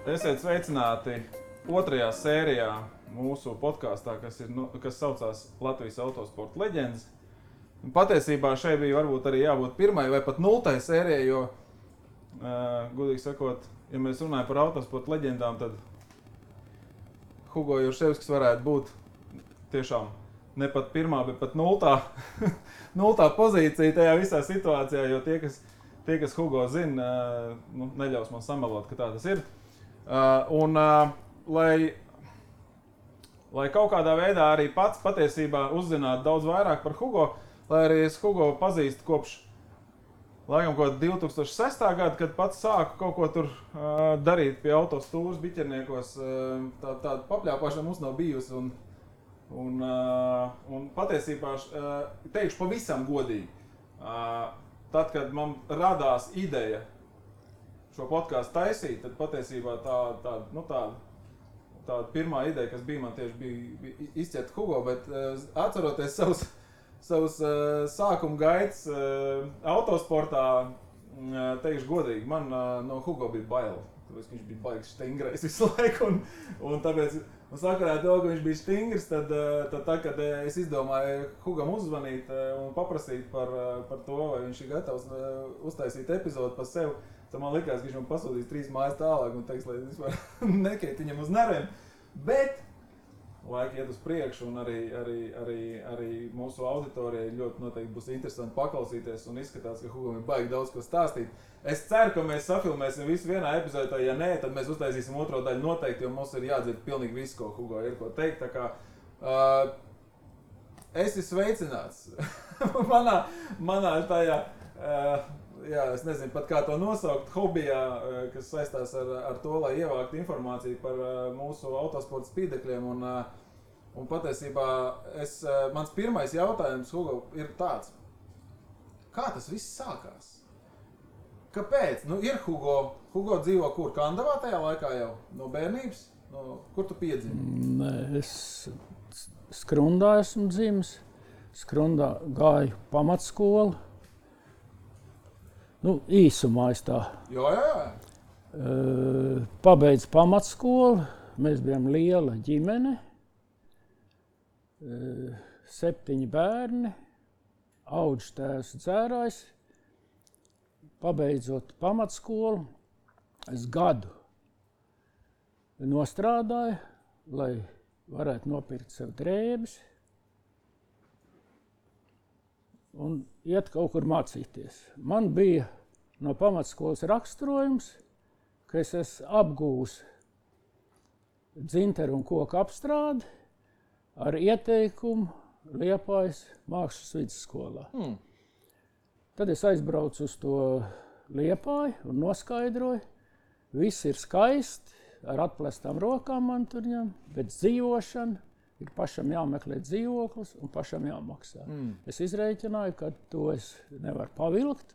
Esiet sveicināti otrajā sērijā mūsu podkāstā, kas saucās Latvijas autosporta leģendas. Patiesībā šeit bija varbūt arī jābūt pirmai vai pat nultai sērijai, jo, godīgi sakot, ja mēs runājam par autosporta leģendām, tad Hugo Jurševskis varētu būt tiešām ne pat pirmā, bet pat nultā pozīcija tajā visā situācijā, jo tie, kas Hugo zina, neļaus man samelot, ka tā tas ir. Lai kaut kādā veidā arī pats patiesībā uzzinātu daudz vairāk par Hugo, lai arī es Hugo pazīstu kopš laikam 2006. Gada, kad pats sāku kaut ko tur darīt pie autostūras biķerniekos, tāda papļāpāšana mums nav bijusi un patiesībā teikšu pavisam godīgi, tad, kad man radās ideja šo podkāstu taisīt, tad patiesībā tā pirmā ideja, kas bija man tieši bija izķert Hugo, bet atceroties savus sākuma gaitas autosportā, teikšu godīgi, man no Hugo bija bail, tāpēc, ka viņš bija baigs stingrais visu laiku, un tāpēc, sakarā to, ka viņš bija stingrs, tad kad es izdomāju Hugam uzzvanīt un paprasīt par to, vai viņš ir gatavs uztaisīt epizodu par sevi, tad man likās, ka viņš man pasūtīs 3 mājas tālāk un teiks, lai es vispār nekait viņam uz nerviem. Bet laika iet uz priekšu un arī mūsu auditorijai ļoti noteikti būs interesanti paklausīties un izskatās, ka Hugam ir baigi daudz ko stāstīt. Es ceru, ka mēs safilmēsim visu vienā epizodē, ja nē, tad mēs uztaisīsim otro daļu noteikti, jo mums ir jādzird pilnīgi viss, ko Hugo ir ko teikt. Tā kā esi sveicināts manā tajā, es nezinu pat kā to nosaukt, hobijā, kas saistās ar to, lai ievāktu informāciju par mūsu autosporta spīdekļiem. Un patiesībā mans pirmais jautājums, Hugo, ir tāds. Kā tas viss sākās? Kāpēc? Ir Hugo dzīvo kur? Kandavā tajā laikā jau? No bērnības? Kur tu piedzimi? Nē, es Skrundā esmu dzimis. Skrundā gāju pamatskolu. Īsumā es tā. Jā. Pabeidzu pamatskolu. Mēs bijām liela ģimene. 7 bērni. Audžtēvs dzērājs. Pabeidzot pamatskolu, es gadu nostrādāju, lai varētu nopirkt sev drēbes un iet kaut kur mācīties. Man bija no pamatskolas raksturojums, ka es esmu apgūs dzinteru un koku apstrādi ar ieteikumu Liepājas mākslas vidusskolā. Tad es aizbraucu uz to Liepāju un noskaidroju. Viss ir skaisti, ar atplestām rokām man tur ņem, bet dzīvošana ir pašam jāmeklē dzīvoklis un pašam jāmaksā. Es izrēķināju, ka to es nevaru pavilkt.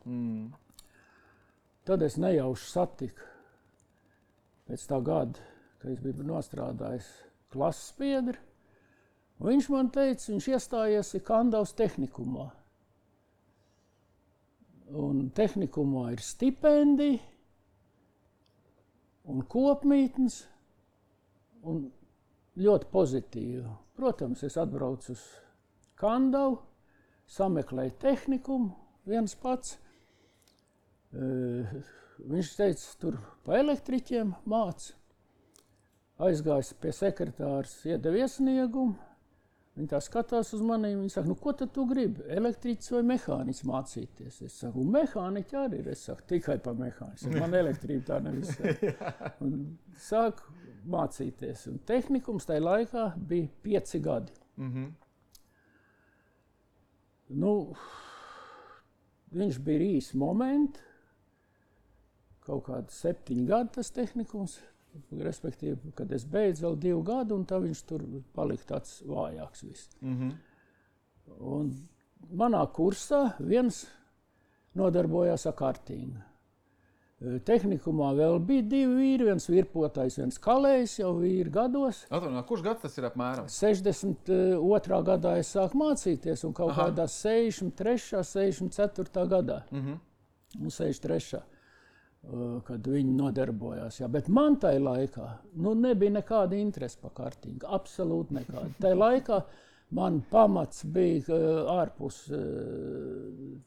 Tad es nejauši satiku pēc tā gada, kad es biju nostrādājis klases biedri. Un viņš man teica, viņš iestājies Kandavas tehnikumā. Un tehnikumā ir stipendija un kopmītnes un ļoti pozitīvi. Protams, es atbraucu uz Kandavu, sameklēju tehnikumu viens pats. Viņš teica, tur pa elektriķiem māca. Aizgājis pie sekretārs, iedeva iesniegumu. Viņi tā skatās uz maniem, viņi saka, ko tad tu gribi, elektriķis vai mehāniķis mācīties? Es saku, mehāniķi arī ir, es saku, tikai pa mehāniķis, man elektrība tā nevis. Un sāku mācīties, un tehnikums tajā laikā bija 5 gadi. Viņš bija īsi momenti, kaut kādi 7 gadi tas tehnikums. Respektīvi, kad es beidzu vēl 2 gadu, un tā viņš tur palika tāds vājāks viss. Un manā kursā viens nodarbojās ar kartingu. Tehnikumā vēl bija 2 vīri, viens virpotājs, viens kalējs, jau vīri gados. Kurš gads tas ir apmēram? 62. gadā es sāku mācīties, un kaut kādā 63. 64. gadā. Un 63. kad viņi nodarbojās. Jā. Bet man tajā laikā nebija nekāda interese par kartingu. Absolūti nekāda. Tajā laikā man pamats bija ārpus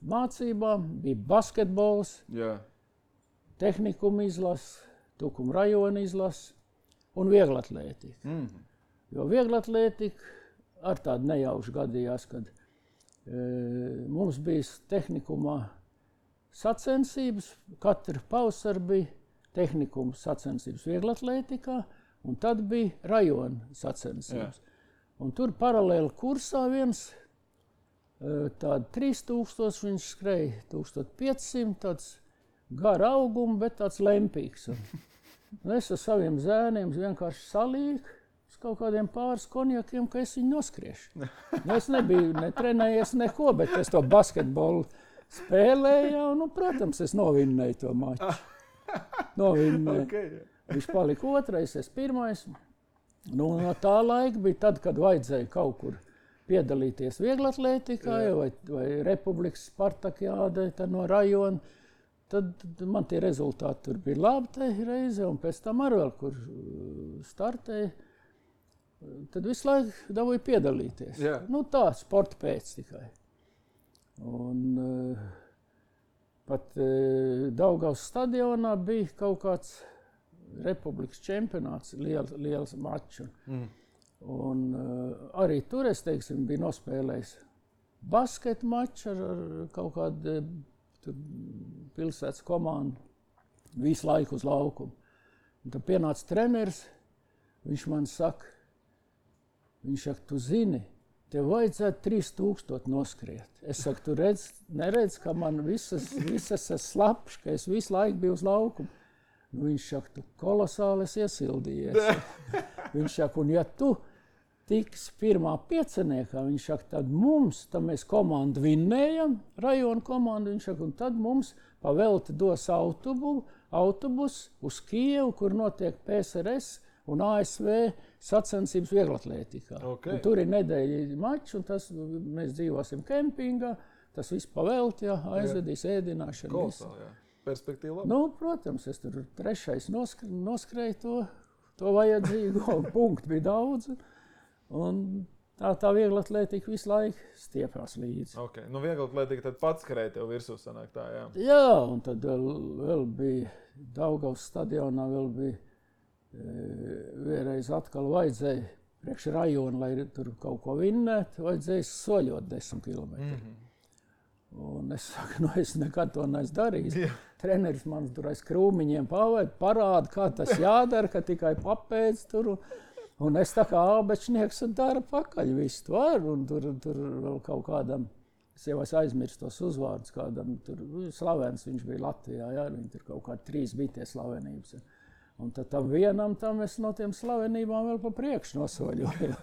mācībām, bija basketbols, tehnikuma izlases, Tukuma rajona izlases un vieglatlētika. Jo vieglatlētika ar tādu nejaušu gadījās, kad mums bija tehnikumā sacensības, katru pavasaru bija tehnikuma sacensības vieglatlētikā, un tad bija rajona sacensības. Un tur paralēli kursā viens tādu 3000, viņš skrēja 1500, tāds gara auguma, bet tāds lempīgs. Un es ar saviem zēniem vienkārši salīku uz kaut kādiem pāris konjakiem, ka es viņu noskriešu. Es nebiju netrenējies neko, bet es to basketbolu spēlēju, un, protams, es novinnēju to maču. Viņš palika otrais, es pirmais. No tā laika bija tad, kad vajadzēja kaut kur piedalīties vieglatlētikā vai Republikas Spartakiādē no rajona. Tad man tie rezultāti tur bija labi tajā reize, un pēc tam arī vēl, kur startēja. Tad visu laiku dabūju piedalīties. Tā, sporta pēc tikai. Un pat Daugavas stadionā bija kaut kāds Republikas čempionāts, liels mačs. Un arī tur, es teiksim, biju nospēlējis basketa maču ar kaut kādu pilsētas komandu visu laiku uz laukumu. Un tad pienāca treneris, viņš man saka, tu zini, tev vajadzētu 3000 noskriet. Es saku, tu neredz, ka man visas ir slapš, ka es visu laiku biju uz laukumu. Viņš saka, tu kolosāli esi iesildījies. Viņš saka, un ja tu tiksi pirmā pieciniekā, viņš saka, tad mēs komandu vinnējam, rajona komandu, viņš saka, un tad mums pavelti dos autobus uz Kijevu, kur notiek PSRS un ASV sacensības vieglatlētikā. Tur ir nedēļa mačs, un mēs dzīvosim kempingā, tas viss pavelti, aizvedīs ēdināšanu. Kolosāli, perspektīva labi. Protams, es tur trešais noskrēju to vajadzīgo, un punktu bija daudz. Un tā vieglatlētika visu laiku stiepās līdzi. Vieglatlētika tad pats skrēja tev virsū sanāk tā, Jā, un tad vēl bija Daugavas stadionā, vēl bija vienreiz atkal vajadzēja priekš rajona, lai tur kaut ko vinnētu, vajadzēja soļot 10 km. Un es saku, es nekad to neesmu darījis. Treneris man tur aiz krūmiņiem parāda, kā tas jādara, ka tikai papēdz tur. Un es tā kā ābečnieks un dara pakaļ visu to ar, un tur vēl kaut kādam, es jau aizmirstu tos uzvārdus, kādam tur slavens viņš bija Latvijā, viņi tur kaut kādi 3 bija tie slavenības. Un tad tam vienam es no tiem slavenībām vēl pa priekšu nosoļoju.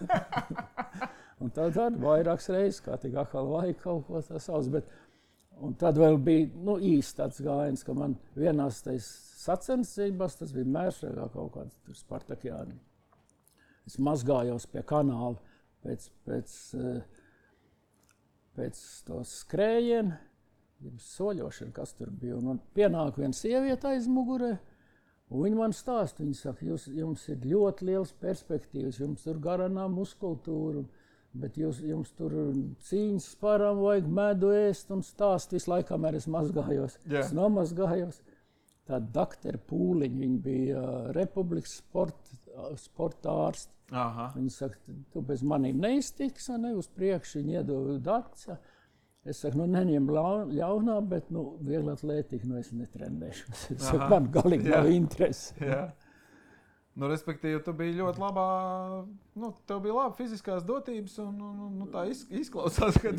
Un tad arī vairākas reizes, kā tik atkal vajag kaut ko tā sauc. Un tad vēl bija īsti tāds gājiens, ka man vienās tais sacensībās, tas bija Mēršregā kaut kāds tur Spartakiāni. Es mazgājos pie kanāla pēc to skrējienu, soļošanu, kas tur bija. Un man pienāk viena sieviete aiz mugurē, un viņa man stāsta, viņa saka, jums ir ļoti liels perspektīvas, jums tur garanā muskultūra, bet jums tur cīņas parām vajag medu ēst un stāst visu laiku, kamēr es mazgājos. Es nomazgājos. Tā doktora Pūliņa, viņa bija Republikas sporta ārsts. Viņa saka, tu bez manīm neiztiks, uz priekšu viņa iedod datus. Es saku, neņem ļaunā, bet vieglatlētika, es netrenēšu. Es saku, man galīgi nav interesi. Respektīvi, tu biji ļoti labā, tev bija laba fiziskās dotības, un tā izklausās, ka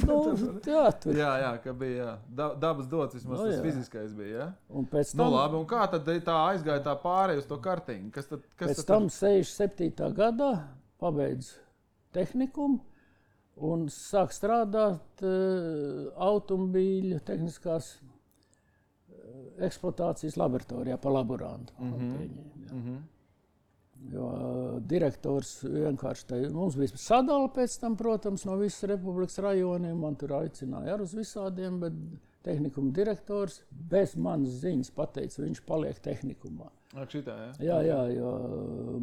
ka bija dabas dots, vismaz tas fiziskais bija, Un pēc tam, labi, un kā tad tā aizgāja tā pārēj uz to kartingu? Pēc tam 67. gadā pabeidzu tehnikumu un sāk strādāt automobīļu tehniskās eksploatācijas laboratorijā pa laborantu. Jo direktors vienkārši mums bija sadala pēc tam, protams, no visas Republikas rajoniem. Man tur aicināja ar uz visādiem, bet tehnikuma direktors bez manas ziņas pateica, viņš paliek tehnikumā. Šitā, Jā, jo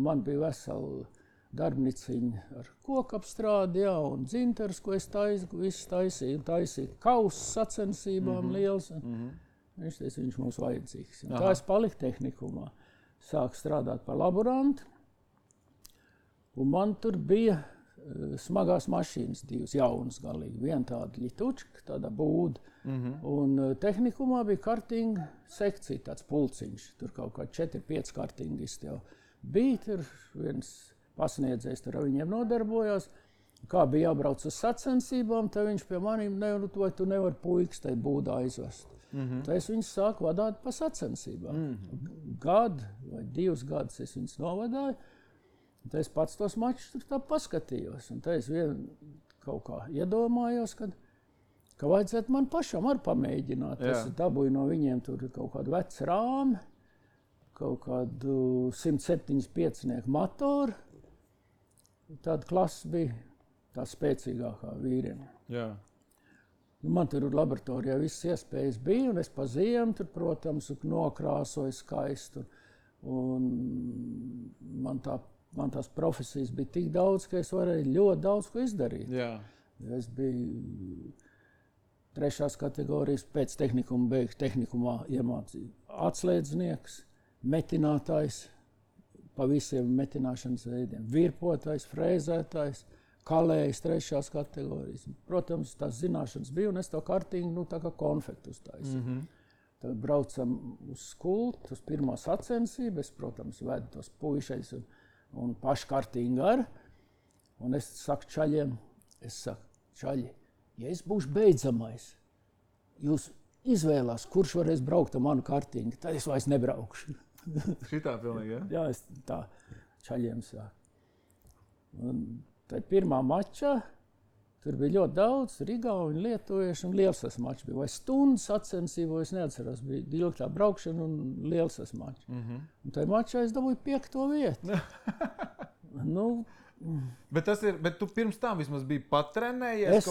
man bija vesela darbniciņa ar kokapstrādi, un dzinteris, ko es taisīju kausu sacensībām liels. Viņš teica, viņš mums vajadzīgs. Tā es paliku tehnikumā. Sāku strādāt par laborantu, un man tur bija smagās mašīnas divas, jaunas galīgi. Viena tāda ļitučka, tāda būda, un tehnikumā bija kartinga sekcija, tāds pulciņš. Tur kaut kā 4-5 kartingisti jau bija, tur viens pasniedzējs tur ar viņiem nodarbojās. Kā bija jābrauc uz sacensībām, tad viņš pie maniem, vai tu nevari puikas tai būdā aizvest. Tad es viņus sāku vadāt pa sacensībām. Gadu vai 2 gadus es viņus novadāju. Tad es pats tos mačus tur tā paskatījos. Un tad es kaut kā iedomājos, ka vajadzētu man pašam arī pamēģināt. Es dabūju no viņiem tur kaut kādu vecu rāmi, kaut kādu 175 motoru. Tāda klasa bija tā spēcīgākā vīriem. Jā. Man tur laboratorijā visas iespējas bija, un es pa ziemu tur, protams, nokrāsoju skaistu. Un man tās profesijas bija tik daudz, ka es varēju ļoti daudz ko izdarīt. Jā. Es biju 3. kategorijas pēc tehnikuma beigas tehnikumā iemācīju atslēdznieks, metinātājs pa visiem metināšanas veidiem, virpotājs, frēzētājs, kalējs 3. kategorijas. Protams, tās zināšanas bija, un es to kartingu tā kā konfektu uztaisīju. Tad braucam uz skultu, uz pirmo sacensību. Es, protams, vedu tos puišais un pašu kartingu ar. Un es saku čaļiem, čaļi, ja es būšu beidzamais, jūs izvēlās, kurš varēs braukt ar manu kartingu, tad es vairs nebraukšu. Šitā pilnīgi, ja? Jā, es tā čaļiem saku. Tad pirmā mačā tur bija ļoti daudz rigauņu, lietuviešu un liels tas mačs bija. Vai stundas sacensību, es neatceros, bija ilgtā braukšana un liels tas mačs. Un tajā mačā es dabūju 5. vietu. Bet tu pirms tam vismaz biji patrenējies?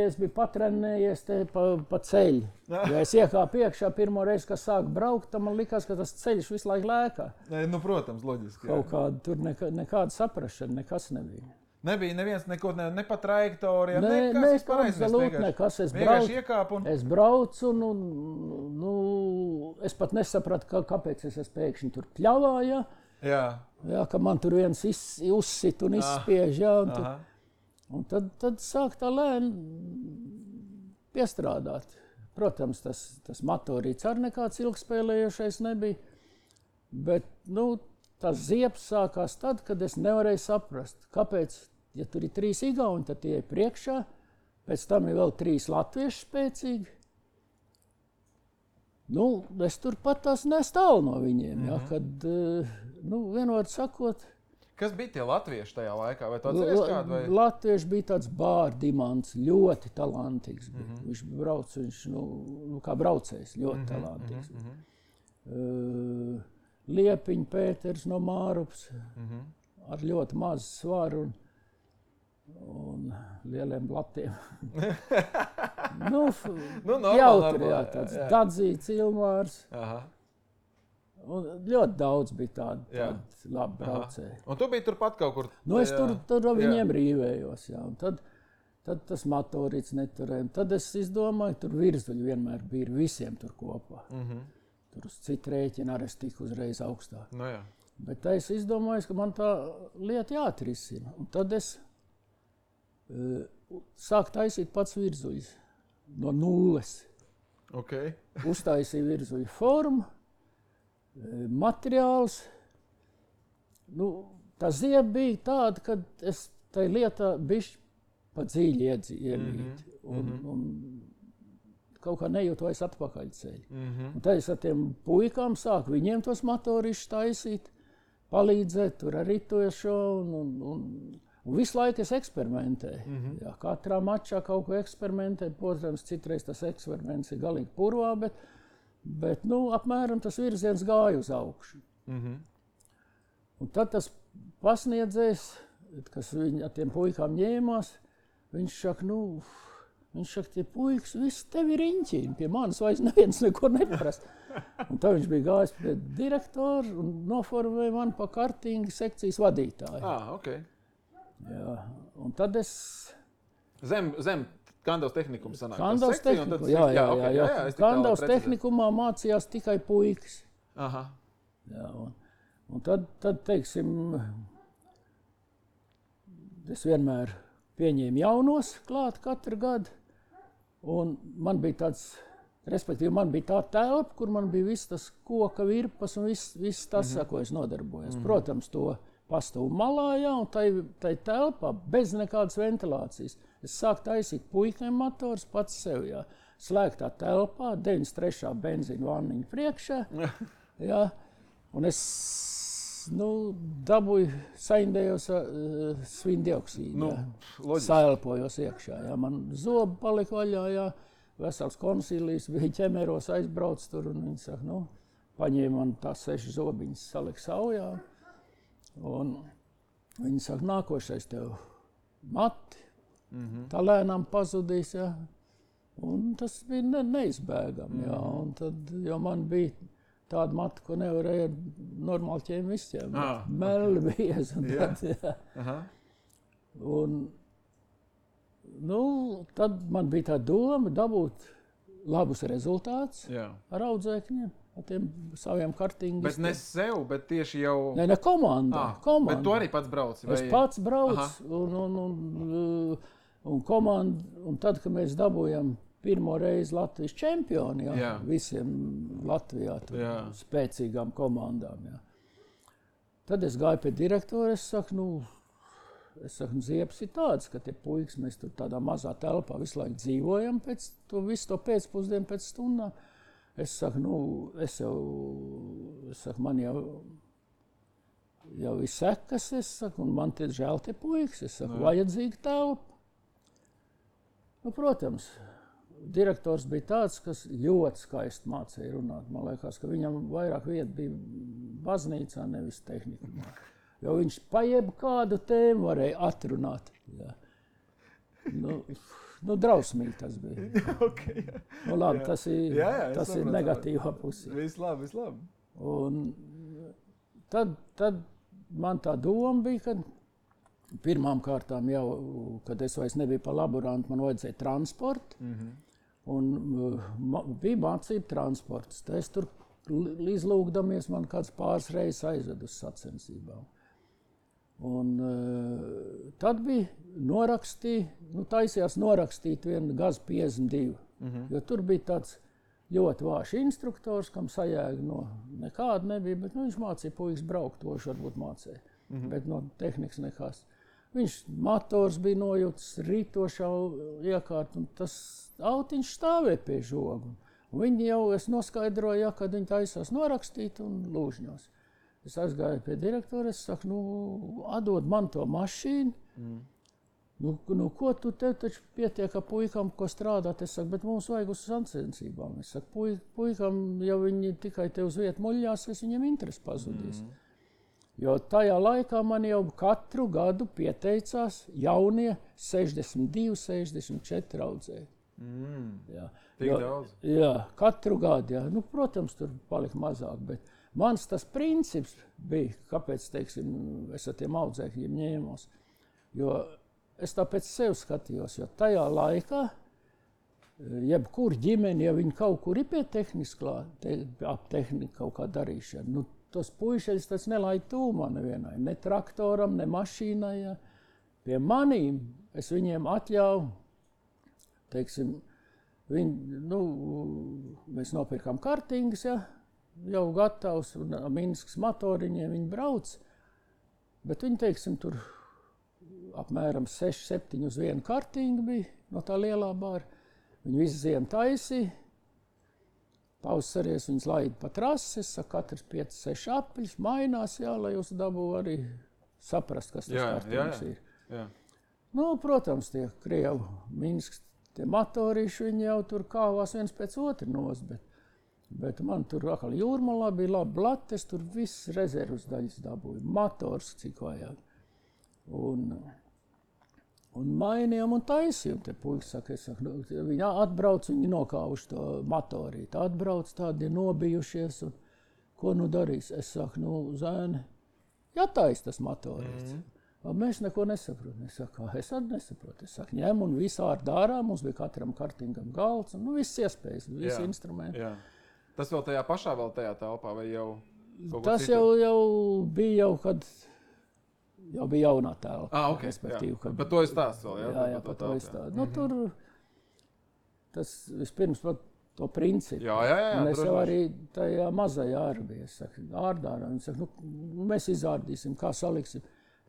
Es biju patrenējies te pa ceļu. Ja es iekāpu iekšā pirmo reizi, kad sāku braukt, tad man likās, ka tas ceļš visu laiku lēkā. Protams, loģiski. Kaut kāda tur nekāda saprašana, nekas nebija. Nebija neviens neko, ne pa trajektorijām, nekas. Es braucu un es pat nesapratu, kāpēc es pēkšņi tur pļavā, Jā, ka man tur viens uzsit un izspiež, un tad sāk tā lēni piestrādāt. Protams, tas motorīts arī nekāds ilgspēlējošais nebija, bet, tas ziepes sākās tad, kad es nevarēju saprast, kāpēc, ja tur ir 3 igauņi, tad tie ir priekšā, pēc tam ir vēl 3 latvieši spēcīgi. Es turpat tās nestāvu no viņiem, kad, vienot sakot... Kas bija tie latvieši tajā laikā? Vai tu atceries kādu? Latvieši bija tāds Bārdimants, ļoti talantīgs. Viņš brauc, kā braucējs, ļoti talantīgs. Liepiņa Pēters no Mārupas, ar ļoti mazu svaru un lieliem blatiem. Jautri, tāds Dadzīts Ilmārs. Un ļoti daudz bija tādi labi braucēji. Un tu biji turpat kaut kur? Es tur viņiem rīvējos, un tad tas motorīts neturēja. Tad es izdomāju, tur virzuļi vienmēr bija visiem tur kopā. Tur uz citu rēķinu arī es tiku uzreiz augstāk. Bet es izdomāju, ka man tā lieta jāatrisina. Un tad es sāku taisīt pats virzuļus no nulles. Uztaisīju virzuļu formu, materiāls. Tā zieba bija tāda, ka es tai lietā bišķi pa dziļi iemīt. Un kaut kā nejūtu vairs atpakaļ ceļu. Un tad es ar tiem puikām sāku viņiem tos motorišus taisīt, palīdzēt tur ar ritošo un visu laiku es eksperimentēju. Katrā mačā kaut ko eksperimentēju. Protams, citreiz tas eksperiments ir galīgi purvā, bet apmēram tas virziens gāja uz augšu. Un tad tas pasniedzējs, kas ar tiem puikām ņēmās, viņš saka, Viņš saka, tie puikas, viss tevi riņķīni, pie manis vairs neviens neko neprast. Un tā viņš bija gājis pie direktora un noformēja mani pa kartinga sekcijas vadītāju. Okay. Jā, un tad es... Zem Kandavas tehnikuma sanāk. Kandavas tehnikuma, jā. Kandavas tehnikumā mācījās tikai puikas. Aha. Jā, un tad, teiksim, es vienmēr pieņēmu jaunos klāt katru gadu. Un man bija tāds, respektīvi, man bija tā telpa, kur man bija viss tas koka virpas un viss tas, ko es nodarbojos. Protams, to pastavu malā, jā, un tai telpā bez nekādas ventilācijas. Es sāku taisīt puikiem motors pats sev, jā. Slēgtā telpā, 93. benzīna vanniņa priekšā, jā. Un es, dabūju, saindējos svindioksīdu, saelpojos iekšā, jā. Man zobi palika vaļā, jā. Vesels konsīlijs bija ķemeros, aizbrauc tur, un viņi saka, paņēma man tās 6 zobiņas, salika saujā. Un viņi saka, nākošais tev mati, tā lēnām pazudīs, jā. Un tas bija neizbēgami, jā. Un tad, jo man bija tāda mata, ko nevarēja normāli ķēmistiem. Melli biezi un tad, jā. Un, tad man bija tā doma dabūt labus rezultātus ar audzēkņiem. Ar tiem saviem kartingiem. Bet ne sev, bet tieši jau... Ne komanda. Bet tu arī pats brauci? Es pats braucu un komanda, un tad, kad mēs dabūjam pirmo reizi Latvijas čempioni, visiem Latvijā spēcīgām komandām, Tad es gāju pie direktora, es saku, Ziepes ir tāds, ka tie puikas, mēs tur tādā mazā telpā visu laiku dzīvojam visu to pēcpusdienu pēc stundām. Es saku, man jau ir sekas, un man tie žēl tie puikas, vajadzīga telpa. Protams, direktors bija tāds, kas ļoti skaisti mācīja runāt. Man liekas, ka viņam vairāk vieta bija baznīcā, nevis tehnikumā. Jo viņš pa jebkādu tēmu varēja atrunāt. Jā. Drausmīgi tas bija. Labi, tas ir negatīvā pusē. Viss labi. Un tad man tā doma bija, ka pirmām kārtām jau, kad es vairs nebiju pa laborantu, man vajadzēja transportu. Un bija mācība transports. Es tur izlūgdamies, man kāds pāris reizes aizved uz sacensībām. Un tad bija taisījās norakstīt vienu GAZ 52, jo tur bija tāds ļoti vājš instruktors, kam sajēga nekāda nebija, bet viņš mācīja puikas braukt, to viņš varbūt mācīja, bet no tehnikas nekās. Viņš motors bija nojūtas rītošā iekārt, un tas autiņš stāvēja pie žogu. Un viņi jau, es noskaidroju, kad viņi taisās norakstīt un lūžņos. Es aizgāju pie direktora, es saku, atdod man to mašīnu. Ko tu te taču pietiek ar puikam, ko strādāt? Es saku, bet mums vajag uz sacensībām. Es saku, puikam, ja viņi tikai te uz vietu muļļās, viņiem interesi pazudīs. Jo tajā laikā man jau katru gadu pieteicās jaunie 62, 64 audzēji. Tik daudz? Jā, katru gadu, jā. Protams, tur palika mazāk, bet mans tas princips bija, kāpēc, teiksim, es ar tiem audzēkļiem ņēmos. Jo es tāpēc sev skatījos, jo tajā laikā, jebkur ģimeni, ja viņi kaut kur ir pie tehnikas klāt, ap tehniku kaut kā darīšana, tos puišeļus tas nelaid tūmā nevienai, ne traktoram, ne mašīnai. Ja. Pie manīm es viņiem atļauju, teiksim, mēs nopirkām kartingas, ja, jau gatavs, un Minskas motoriņiem viņi brauc, bet viņi, teiksim, tur apmēram 6-7 uz vienu kartingu bija no tā lielā bāra. Viņi visu ziemu taisīja, pavasaries viņas laida pa trases, katrs 5-6 apļus, mainās, jā, lai jūs dabū arī saprast, kas tas kartings ir. Jā. Protams, tie Krievu Minskas, tie motorīši, viņi jau tur kāvās viens pēc otru nos, bet man tur atkal jūrmalā bija labi blates, tur viss rezervas daļas dabūja, motors cik vajag. Un mainījām un taisījām. Te puikas saka, viņi atbrauc, viņi nokāvuši to motorīti. Atbrauc tādi nobijušies, un ko nu darīs? Es saku, zēni, jātais tas motorīts. Mēs neko nesaprotam. Es saku, es arī nesaprotu. Es saku, ņem un visu ārā, mums bija katram kartingam galds, un viss iespējas, visi instrumenti. Jā. Tas vēl tajā pašā telpā vai jau? Tas jau bija kad jau bija jaunā telpa. Okay, respektīvi. Kad... Bet to es stāstu vēl, jā, par to es stāstu. Nu, tur tas vispirms par to principu. Jā, un es jau arī tajā mazajā arī biju. Es saku, ārdārā. Viņi saka, mēs izārdīsim, kā saliksim.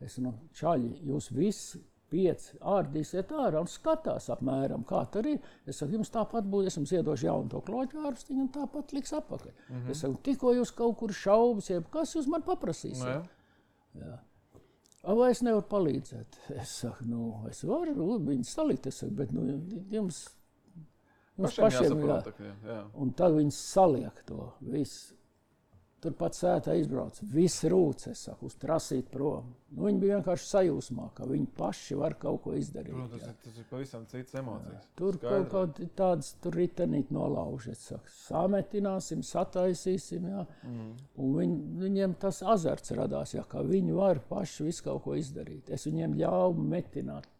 Es čaļi, jūs visi 5 ārdīsiet ārā un skatās apmēram, kā tur ir. Es saku, jums tāpat būs, es jums iedošu jaunu to kloķu ārstiņu un tāpat liks apakaļ. Es saku, tikko jūs kaut kur šaubas, kas jūs man paprasīsiet? Jā. Vai es nevaru palīdzēt? Es saku, es varu viņus salikt, es saku, bet jums pašiem jā. Un tad viņi saliek to visu. Turpat sētā izbrauc, viss rūc, es saku, uz trasīt prom. Viņi bija vienkārši sajūsmā, ka viņi paši var kaut ko izdarīt. Tas ir pavisam citas emocijas. Tur kaut kādi tādas ritenīt nolauž, es saku, sametināsim, sataisīsim, jā. Un viņiem tas azarts radās, jā, ka viņi var paši visu kaut ko izdarīt. Es viņiem ļauju metināt.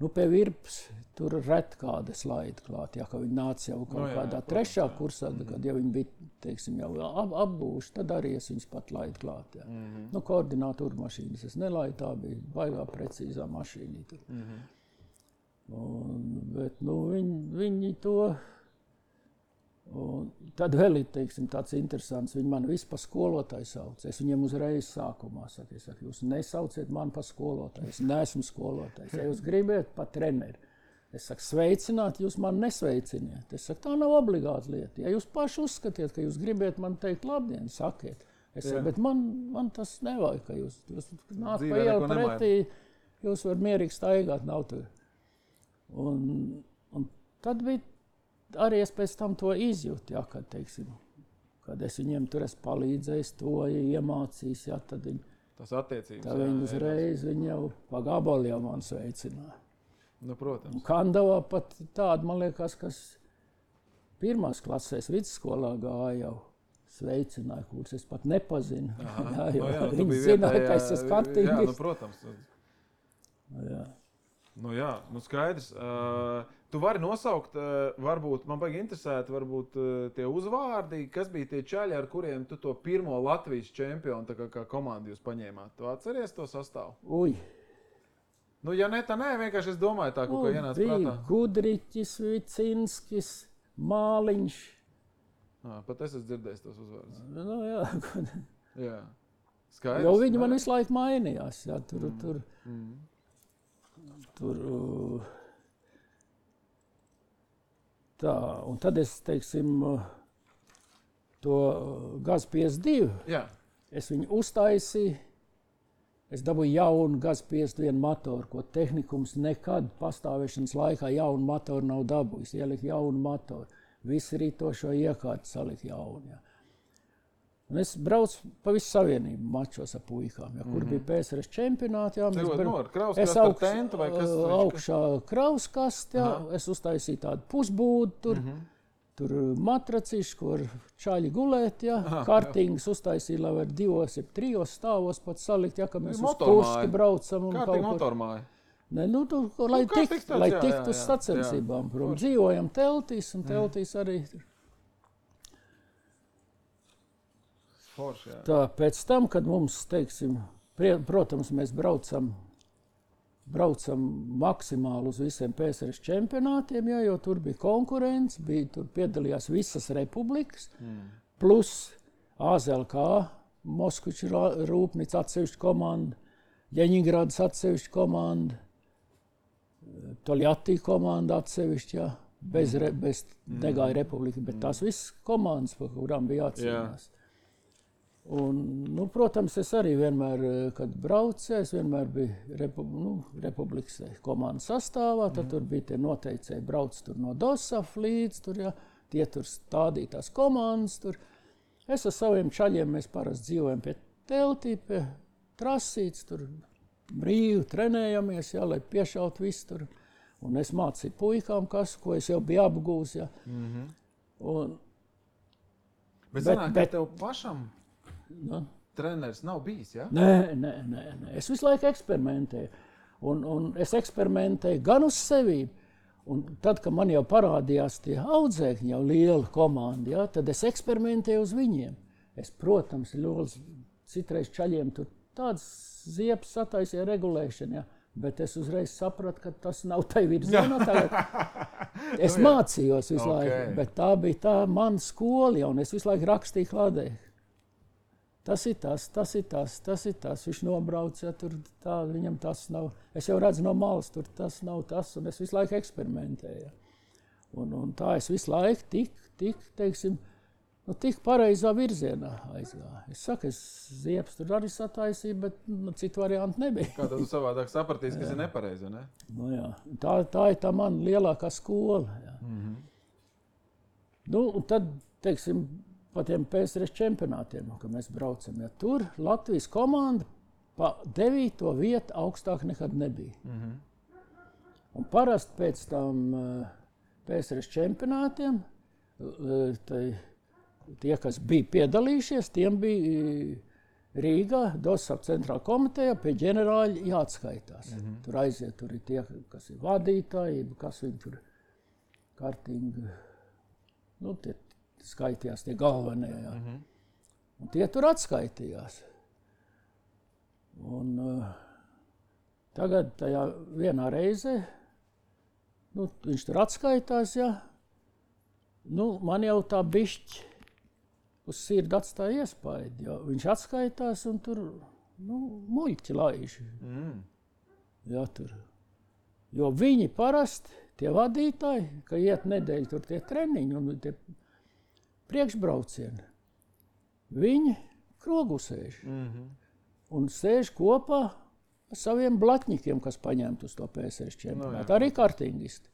Pie virpas tur ret kāda slaida klāt, ja, ka viņi nāca jau kaut kādā trešā kursā, kad jau viņi bija, teiksim, jau apbūši, tad arī es viņus pat laidu klāt. Ja. Koordinātoru mašīnas es nelaidu, tā bija baigā precīzā mašīnīta. Bet viņi to... Un tad vēl ir, teiksim, tāds interesants, viņi man visu pa skolotāju sauc. Es viņiem uzreiz sākumā saku, jūs nesauciet mani pa skolotāju, es neesmu skolotājs. Ja jūs gribat pa treneri, es saku, sveicināt, jūs mani nesveiciniet. Es saku, tā nav obligāta lieta. Ja jūs paši uzskatiet, ka jūs gribat man teikt labdien, sakiet. Es saku, bet man tas nevajag, ka jūs nāk pa ielu pretī, jūs var mierīgi staigāt, nav tur. Un tad bija arī es pēc tam to izjūtu, ja, kad, teiksim, kad es viņiem tur esmu palīdzējis, to iemācījis, ja, tad tas attiecības. Tad viņi uzreiz viņi jau pa gabalu jau man sveicināja. Protams. Kandavā pat tāda, man liekas, kas pirmās klasēs vidusskolā gāja jau sveicināja, kurus es pat nepazinu. Viņi zināja, ka es esmu kartīgis. Protams. Jā. Skaidrs. Tu vari nosaukt, varbūt, man baigi interesēt, varbūt tie uzvārdi, kas bija tie čaļi, ar kuriem tu to pirmo Latvijas čempionu kā komandu jūs paņēmāt. Tu atceries to sastāvu? Ja ne, tā nē, vienkārši es domāju tā, kaut kā ienāc prātā. Bija Gudriķis, Vicinskis, Māliņš. Pat es esmu dzirdējis tos uzvārdus. Jā. Jā. Skaidrs. Jo viņi man visu laiku mainījās. Jā, Tā, un tad es, teiksim, to GAZ 52, es viņu uztaisīju, es dabūju jaunu GAZ 51 motoru, ko tehnikums nekad pastāvēšanas laikā jaunu motoru nav dabūjis, ielika jaunu motoru, visi rītošo iekārtu salika jaunu. Ja. Un es braucu pa visu savienību mačos ar puikām, ja, kur bija PSRS čempionāti. Jā, es augšā krauskasti, es uztaisīju tādu pusbūdu tur, tur matracīšu, kur čaļi gulēt, ja, kartīngas uztaisīju, lai var 2 vai 3 stāvos pat salikt, ja, ka mēs uz Kurski braucam. Kārtīgi motormāja. Ne, lai tiktu uz sacensībām, prom, dzīvojam teltīs, un teltīs arī... Forši, tā, pēc tam, kad mums, teiksim, protams, mēs braucam maksimāli uz visiem PSRS čempionātiem, jā, jo tur bija konkurence, tur piedalījās visas republikas, plus AZLK, Moskviča rūpnīca atsevišķa komanda, Ļeņingradas atsevišķa komanda, Toļjatī komanda atsevišķa, jā, bez negāja republika, bet tās visas komandas, par kurām bija jācīnās. Un, protams, es arī vienmēr, kad braucu, es vienmēr biju republikas komandas sastāvā, tad tur bija tie noteicēji, brauc tur no DOSAF līdz, tur, ja, tie tur stādītās komandas, tur. Es ar saviem čaļiem, mēs parasti dzīvojam pie teltī, pie trasītes, tur brīvi trenējamies, jā, lai piešaut visu tur. Un es mācīju puikām, ko es jau biju apgūs, jā. Un, bet sanāk, ka tev pašam treneris nav bijis, jā? Nē. Es visu laiku eksperimentēju. Un es eksperimentēju gan uz sevi. Un tad, kad man jau parādījās tie audzēkņi, jau liela komanda, jā, tad es eksperimentēju uz viņiem. Es, protams, citreiz čaļiem tur tāds ziepes sataisīja regulēšana, jā. Bet es uzreiz sapratu, ka tas nav tai virzienā. Es mācījos visu laiku, bet tā bija tā mana skola, un es visu laiku rakstīju kladē. Tas ir tas. Viņš nobrauc, ja tur tā, viņam tas nav. Es jau redzu no malas, tur tas nav tas, un es visu laiku eksperimentēju. Un tā es visu laiku tik pareizā virzienā aizgāju. Es saku, es ziepes tur arī sataisīju, bet citu variantu nebija. Kā tad tu savādāk sapratīsi, kas ir nepareizi, ne? Nu jā, tā ir tā mana lielākā skola. Jā. Nu, un tad, teiksim, pa tiem PSRS čempionātiem, kad mēs braucam, ja tur Latvijas komanda pa 9. vietu augstāk nekad nebija. Un parasti pēc tam PSRS čempionātiem, tie, kas bija piedalījušies, tiem bija Rīgā, Dosaf centrāla komiteja, pie ģenerāļa jāatskaitās. Tur aiziet, tur ir tie, kas ir vadītāji, kas viņi tur kārtīgi, nu, tie skaitījās, tie galvenie, jā. Un tie tur atskaitījās. Un tagad tajā vienā reizē, nu, viņš tur atskaitās, jā. Nu, man jau tā bišķi uz sirdi atstāja iespaidu, jo viņš atskaitās un tur, nu, muļķi laiž. Jā, tur. Jo viņi parasti, tie vadītāji, ka iet nedēļu tur tie treniņi un tie priekšbraucieni, viņi krogu sēž. Un sēž kopā ar saviem blatņikiem, kas paņemt uz to PSRS čempionātu. Arī kartingisti.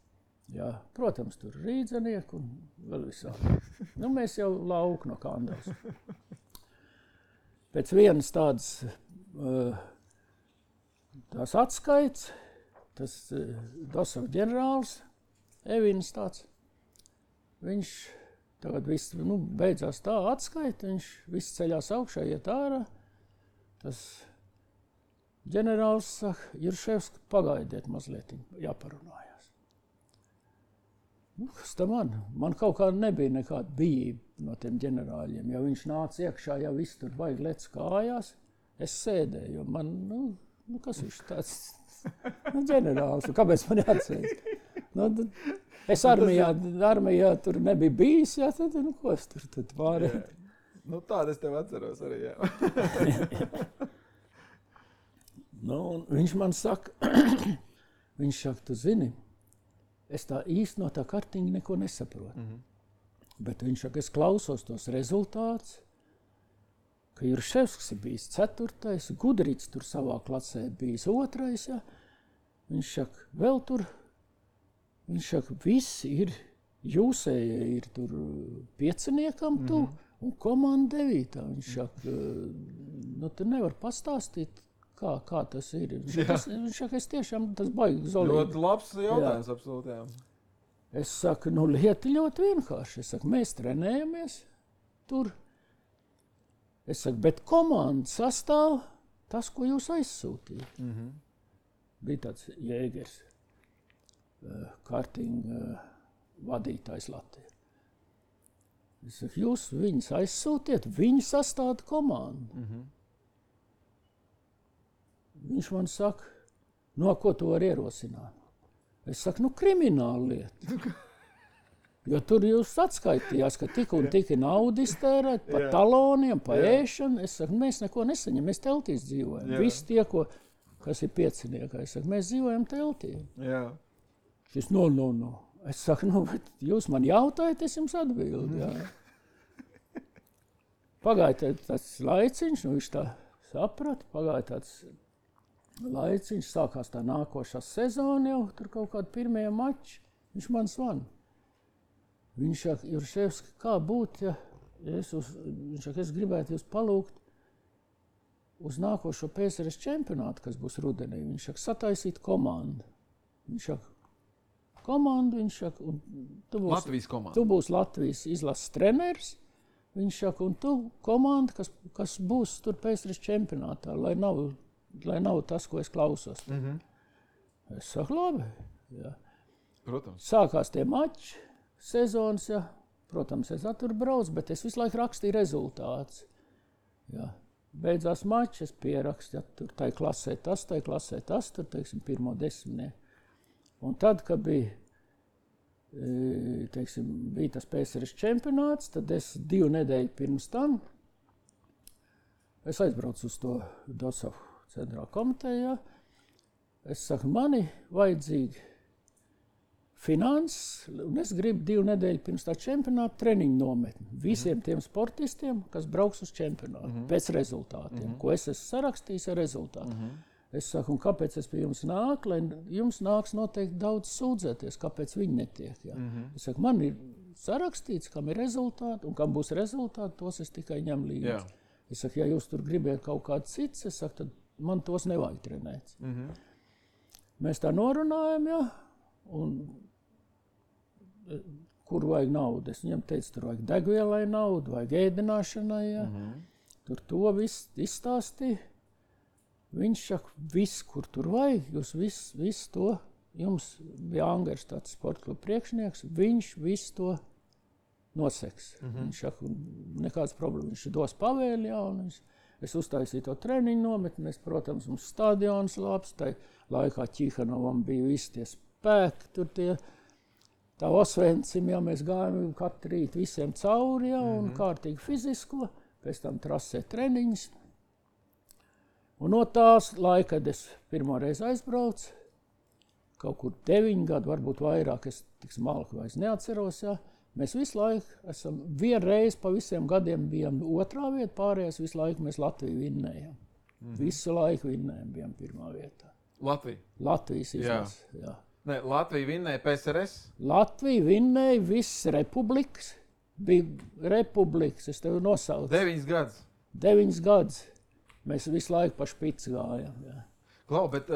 Jā, protams, tur rīdzenieki un vēl visādi. Nu, mēs jau lauku no Kandavas. Pēc vienas tādas tās atskaits, tas Dosaf ģenerālis, Evins tāds, viņš tagad viss, nu, beidzās tā atskaita, viņš viss ceļās augšā, iet ārā. Tas ģenerālis saka, Jurševs, pagaidiet mazliet, jāparunājās. Nu, kas tā man? Man kaut kā nebija nekāda bijība no tiem ģenerāļiem. Ja viņš nāca iekšā, ja viss tur baigi lec kājās, es sēdēju, jo man, nu kas viņš tāds, nu, ģenerālis, kāpēc man jāatceļ? Nu, es armijā tur nebija bijis, jā, tad, nu, ko es tur tad pārēju? Nu, tāda es tev atceros arī, jā. Nu, un viņš man saka, tu zini, es tā īsti no tā kartiņa neko nesaprotu. Bet viņš saka, es klausos tos rezultātus, ka Jurševskis ir bijis 4. Gudrīts tur savā klasē bijis 2. Ja. Viņš saka, vēl tur, viņš saka, visi ir, jūsējie ir tur 5. tu un komanda 9. Viņš saka, nu tu nevar pastāstīt, kā tas ir. Viņš saka, es tiešām tas baigi zolīgi. Ļoti labs jautājums, absolūti, jā. Es saku, nu lieta ļoti vienkārši. Es saku, mēs trenējamies tur. Es saku, bet komanda sastāv tas, ko jūs aizsūtījāt. Bija tāds Jēgers, kartinga vadītājs Latvijā. Es saku, jūs viņus aizsūtiet, viņi sastāda komandu. Viņš man saka, no ko tu vari ierosināt? Es saku, nu krimināla lieta. Jo tur jūs atskaitījās, ka tik un tik ir naudu iztērēt pa taloniem, pa ēšanu. Es saku, mēs neko nesaņem, mēs teltīs dzīvojam. Visi tie, kas ir 5. Es saku, mēs dzīvojam teltī. Šis, no. Es saku, nu, bet jūs man jautājat, es jums atbildu. Jā. Pagāja tāds laiciņš, nu viņš tā saprata, pagāja tāds laiciņš, sākās tā nākošā sezona jau, tur kaut kādi pirmie mači, viņš man zvana. Viņš saka, Jurševski, kā būt, ja viņš saka, es gribētu jūs palūgt, uz nākošo PSRS čempionātu, kas būs rudenī. Viņš saka, sataisīt komandu. Viņš saka, komandu, viņš saka, un tu būsi Latvijas izlases treneris. Viņš saka, un tu komanda, kas būs tur PSRS čempionātā, lai nav tas, ko es klausos. Es saku, labi. Jā. Protams. Sākās tie mači, sezonas, jā. Protams, es tur braucu, bet es visu laiku rakstīju rezultātus. Jā. Beidzās mači, es pierakstu, ja tur tai klasē tas, tur, teiksim, 1. 10. Un tad, kad bija tas PSRS čempionāts, tad es 2 nedēļu pirms tam es aizbraucu uz to Dosavu centrālu komiteju. Es saku, mani vajadzīgi finanses, un es gribu 2 nedēļu pirms tā čempionāta treniņu nometni visiem tiem sportistiem, kas brauks uz čempionātu pēc rezultātiem, ko es esmu sarakstījis ar rezultātu. Es saku, un kāpēc es pie jums nāku, lai jums nāks noteikti daudz sūdzēties, kāpēc viņi netiek. Ja? Es saku, man ir sarakstīts, kam ir rezultāti, un kam būs rezultāti, tos es tikai ņem līdzi. Es saku, ja jūs tur gribiet kaut kāds cits, es saku, tad man tos nevajag trenēt. Mēs tā norunājam, ja? Un kur vajag naudu? Es viņam teicu, tur vajag degvielai naudu, vajag ēdināšanai, ja? Tur to viss izstāstīja. Viņš saka, viss, kur tur vajag, jūs viss to, jums bija Angers tāds sporta kluba priekšnieks, viņš viss to noseks. Viņš saka, nekāds problēma, viņš dos pavēli, jā, un es uztaisīju to treniņu nometni, mēs, protams, mums stadions labs, tai laikā Ķihanovam bija visi tie spēki, tur tie, tā Osvencim, jā, mēs gājām katru rītu visiem cauri, jā, un kārtīgi fizisko, pēc tam trasē treniņus. Un no tās laika, kad es pirmo reizi aizbraucu, kaut kur 9 gadu, varbūt vairāk, es tik smalki vairs neatceros, jā. Mēs visu laiku esam, vienreiz pa visiem gadiem bijām 2. vieta, pārējās visu laiku mēs Latviju vinnējām. Visu laiku vinnējām, bijām 1. vietā. Latvija? Latvijas izlases, jā. Ne, Latvija vinnēja PSRS? Latvija vinnēja visas republikas, bija republikas, es tevi nosaucu. 9 gadus? 9 gadus. Mēs visu laiku pa špici gājām. Jā. Klau, bet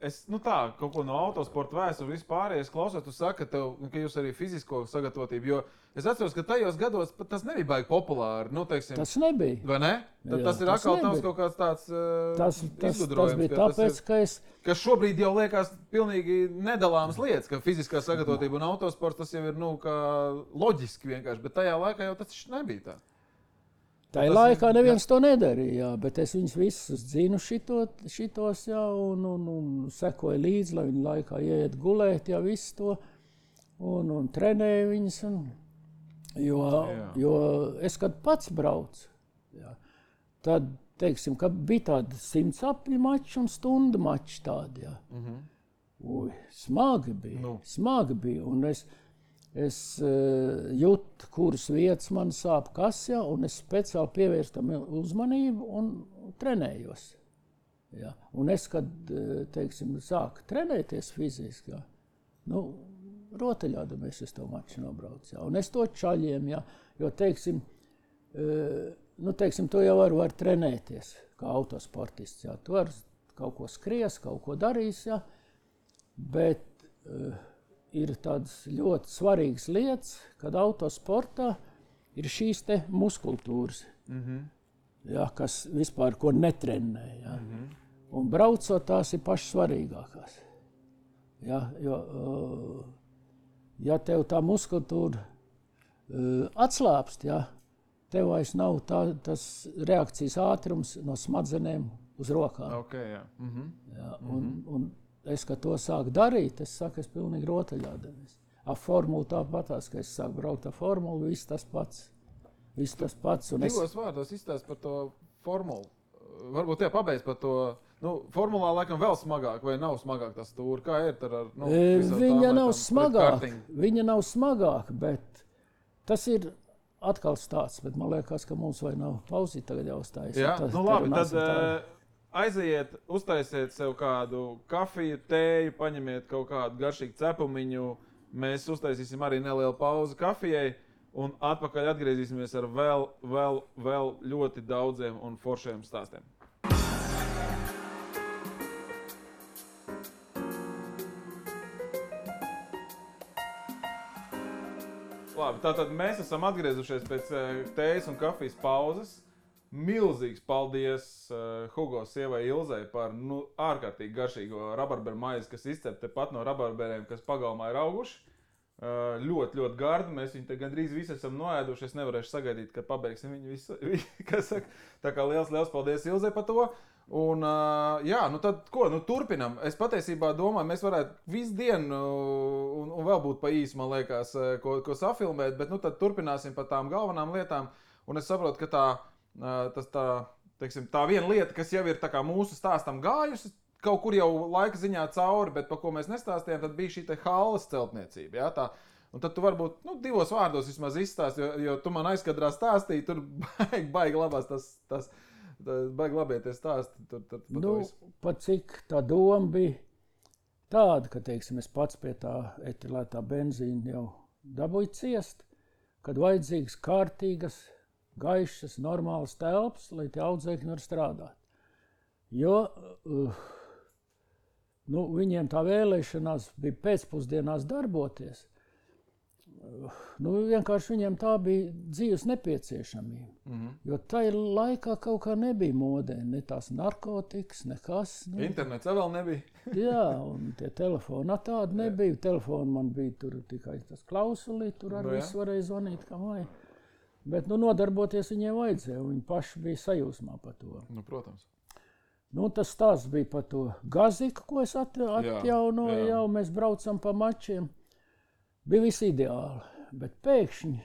es kaut ko no autosporta vēstures vispārējais klausos, tu saki, ka jūs arī fizisko sagatavotību, jo es atceros, ka tajos gados tas nebija baigi populāri. Teiksim, tas nebija. Vai ne? Tad tas ir atkal tavs kaut kāds tāds izgudrojums. Tas bija tāpēc, ka šobrīd jau liekas pilnīgi nedalāmas lietas, ka fiziskā sagatavotība un autosports tas jau ir kā loģiski vienkārši, bet tajā laikā jau tas nebija tā. Tajā laikā neviens to nedarīja, bet es viņus visus zinu šitos, jā, un sekoju līdzi, lai viņi laikā ieiet gulēt, jā, visu to, un trenēju viņus, jo es, kad pats braucu, jā, tad, teiksim, ka bija tādi 100 apļu mači un stundu mači tādi, jā. Ui, smagi bija, un es jūtu, kuras vietas man sāp kasjā, un es speciāli pievērstu tam uzmanību un trenējos. Ja. Un es, kad, teiksim, sāku trenēties fiziski, ja, rotaļādamies es to maču nobraucu. Ja. Un es to čaļiem, ja, jo, teiksim, tu jau var trenēties kā autosportists. Ja. Tu var kaut ko skries, kaut ko darīs, ja, bet ir tādas ļoti svarīgas lietas, kad autosportā ir šīs te muskultūras, ja, kas vispār ko netrenē. Ja. Un braucot tās ir pašas svarīgākās. Ja, jo, ja tev tā muskultūra atslāpst, ja, tev vairs nav tas reakcijas ātrums no smadzenēm uz rokām. Okay, jā. Ja, un es, kad to sāku darīt, es saku, es pilnīgi rotaļādamies. Ar formulu tāpatās, ka es sāku braukt ar formulu, viss tas pats. Divos vārdos izstāst par to formulu. Varbūt pabeidz par to. Formulā laikam vēl smagāk, vai nav smagāk tas stūri? Kā ir ar viņa nav smagāk, bet tas ir atkal stāsts. Bet man liekas, ka mums vai nav pauzīt tagad jāuzstājas. Jā, labi, tad aiziet, uztaisiet sev kādu kafiju, tēju, paņemiet kaut kādu garšīgu cepumiņu. Mēs uztaisīsim arī nelielu pauzi kafijai un atpakaļ atgriezīsimies ar vēl ļoti daudziem un foršiem stāstiem. Labi, tātad mēs esam atgriezušies pēc tējas un kafijas pauzes. Milzīgs paldies Hugo sievai Ilzei par ārkārtīgi garšīgo rabarberu maizi, kas izcep tepat no rabarberiem, kas pagalmā ir auguši. Ļoti, ļoti gardi. Mēs viņu te gandrīz visi esam noēduši. Es nevarēšu sagaidīt, kad pabeigsim viņu visu. Kas saka? Tā kā liels paldies Ilzei par to. Un, jā, nu tad ko? Nu turpinam. Es patiesībā domāju, mēs varētu visu dienu un vēl būt pa īsu, man liekas, ko safilmēt, bet nu tad turpināsim par tām galvenām lietām. Un es saprotu, ka tā viena lieta, kas jau ir tā kā mūsu stāstam gājusi, kaut kur jau laika ziņā cauri, bet par ko mēs nestāstījām, tad bija šī te halles celtniecība. Ja, tā. Un tad tu varbūt divos vārdos vismaz izstāst, jo tu man aizkadrā stāstīji, tur baigi labās baigi labieties stāsti. Pat cik tā doma bija tāda, ka, teiksim, es pats pie tā etilētā benzīna jau dabūju ciest, kad vajadzīgas kārtīgas, gaišas, normālas telpas, lai tie audzēkņi var strādāt. Jo viņiem tā vēlēšanās bija pēcpusdienās darboties. Vienkārši viņiem tā bija dzīves nepieciešamība. Mm-hmm. Jo tajā laikā kaut kā nebija modē, ne tās narkotikas, nekas. Internets vēl nebija. Jā, un tie telefoni tādi nebija. Telefoni man bija tur tikai tas klausulī, tur arī viss varēja zvanīt, kā vajag. Bet nodarboties viņiem vajadzēja, un viņi paši bija sajūsmā par to. Protams. Tas stāsts bija par to gaziku, ko es atjaunoju, jau mēs braucam pa mačiem. Bija viss ideāli, bet pēkšņi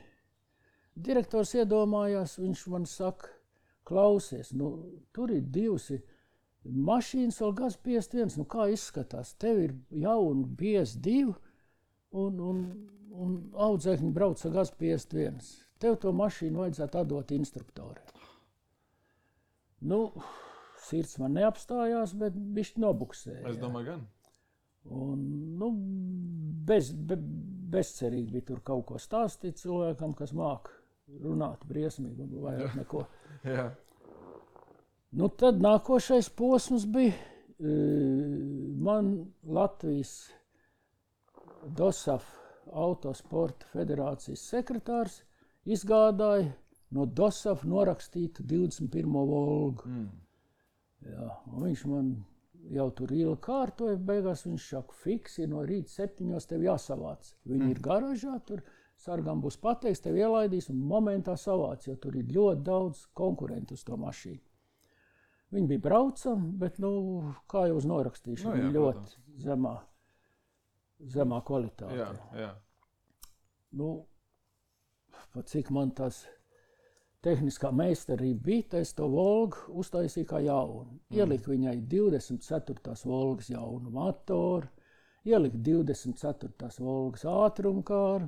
direktors iedomājās, viņš man saka, klausies, tur ir divas mašīnas, vēl gaz 51, kā izskatās, tev ir jauna BS2 un audzēkņi brauc ar gaz 51. Tev to mašīnu vajadzētu atdot instruktoriem. Sirds man neapstājās, bet bišķi nobuksēja. Es domāju, gan. Un, bezcerīgi bija tur kaut ko stāstīt cilvēkam, kas māk runāt briesmīgi un vairāk neko. Jā. Tad nākošais posms bija man Latvijas DOSAF Autosporta federācijas sekretārs izgādāja no DOSAF norakstītu 21. Volgu. Jā, un viņš man jau tur ilgi kārtoja, beigās viņš saka, fiksi, no rīta 7 tev jāsavāc. Viņi ir garažā, tur sargam būs pateiks, tev ielaidīs un momentā savāc, jo tur ir ļoti daudz konkurentu uz to mašīnu. Viņi bija braucami, bet, kā jau uz norakstīšanu, viņi ļoti zemā kvalitātē. Jā. Pat cik man tas tehniskā meistarība bija, es to Volgu uztaisīju kā jaunu. Ieliku viņai 24. Volgas jaunu motoru, ieliku 24. Volgas ātrumkāru,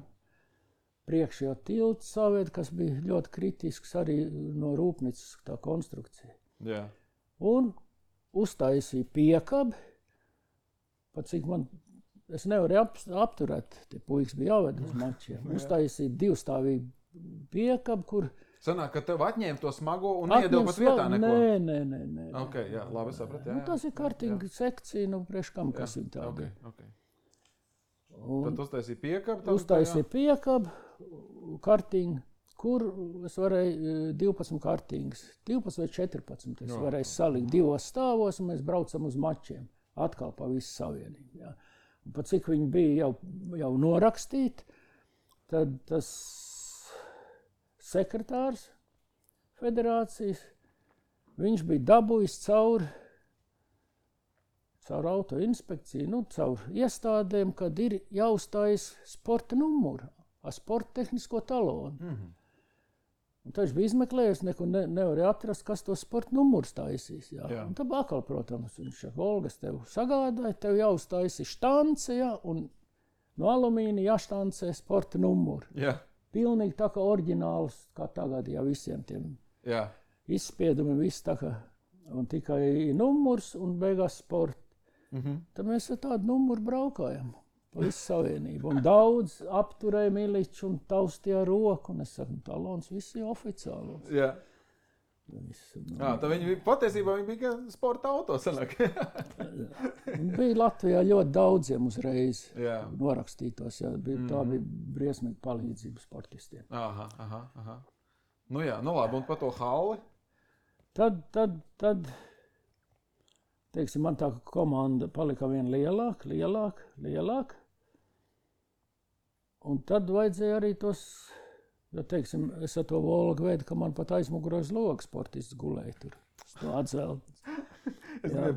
priekšējā tiltu saviet, kas bija ļoti kritisks arī no rūpnīcas tā konstrukcija. Jā. Un uztaisīju piekabi, pat cik es nevarēju apturēt, tie puikas bija jāved uz mačiem. Uztaisīju divstāvīgu piekabi, kur sanāk, ka tev atņēma to smago un iedeva pat vietā neko? Nē. Ok, jā, labi sapratu. Tas ir kartinga sekcija, priekš kam, kas ir tāda. Okay. Tad uztaisīja piekabi? Uztaisīja piekabi, kartinga, kur es varēju 12 kartingas, 12 vai 14. Es varēju salikt 2 stāvos, un mēs braucam uz mačiem, atkal pa visu savienību. Jā. Un pat cik viņi bija jau norakstīti, tad tas sekretārs federācijas, viņš bija dabūjis caur autoinspekciju, caur iestādēm, kad ir jāuzstājas sporta numuru, ar sporta tehnisko talonu. Mm-hmm. Un tad viņš bija izmeklējis, neko nevarēja atrast, kas to sporta numuru taisīs. Jā. Un tad atkal, protams, viņš saka, Volgas tev sagādāja, tev jāuzstājas štance, un no alumīna jāštancē sporta numuru. Jā. Pilnīgi tā kā oriģināls, kā tagad, visiem tiem izspiedumiem, viss tā kā, un tikai numurs un beigās sporta. Mm-hmm. Tad mēs ar tādu numuru braukājam pa visu savienību. Un daudz apturēja miliču un taustīja roku, un es saku, talons visi oficiālos. Jā. Tā viņi patiesībā bija sporta auto sanāk. Bija Latvijā ļoti daudziem uzreiz Jā. norakstītos. Jā. Tā bija briesmīga palīdzība sportistiem. Aha. Nu jā, nu labi, un par to halli? Tad teiksim, man tā komanda palika vien lielāka. Un tad vajadzēja arī tos, jo, teiksim, es ar to Volgu veidu, ka man pat aizmuguros logs sportists gulēja tur. Es to atvēlu.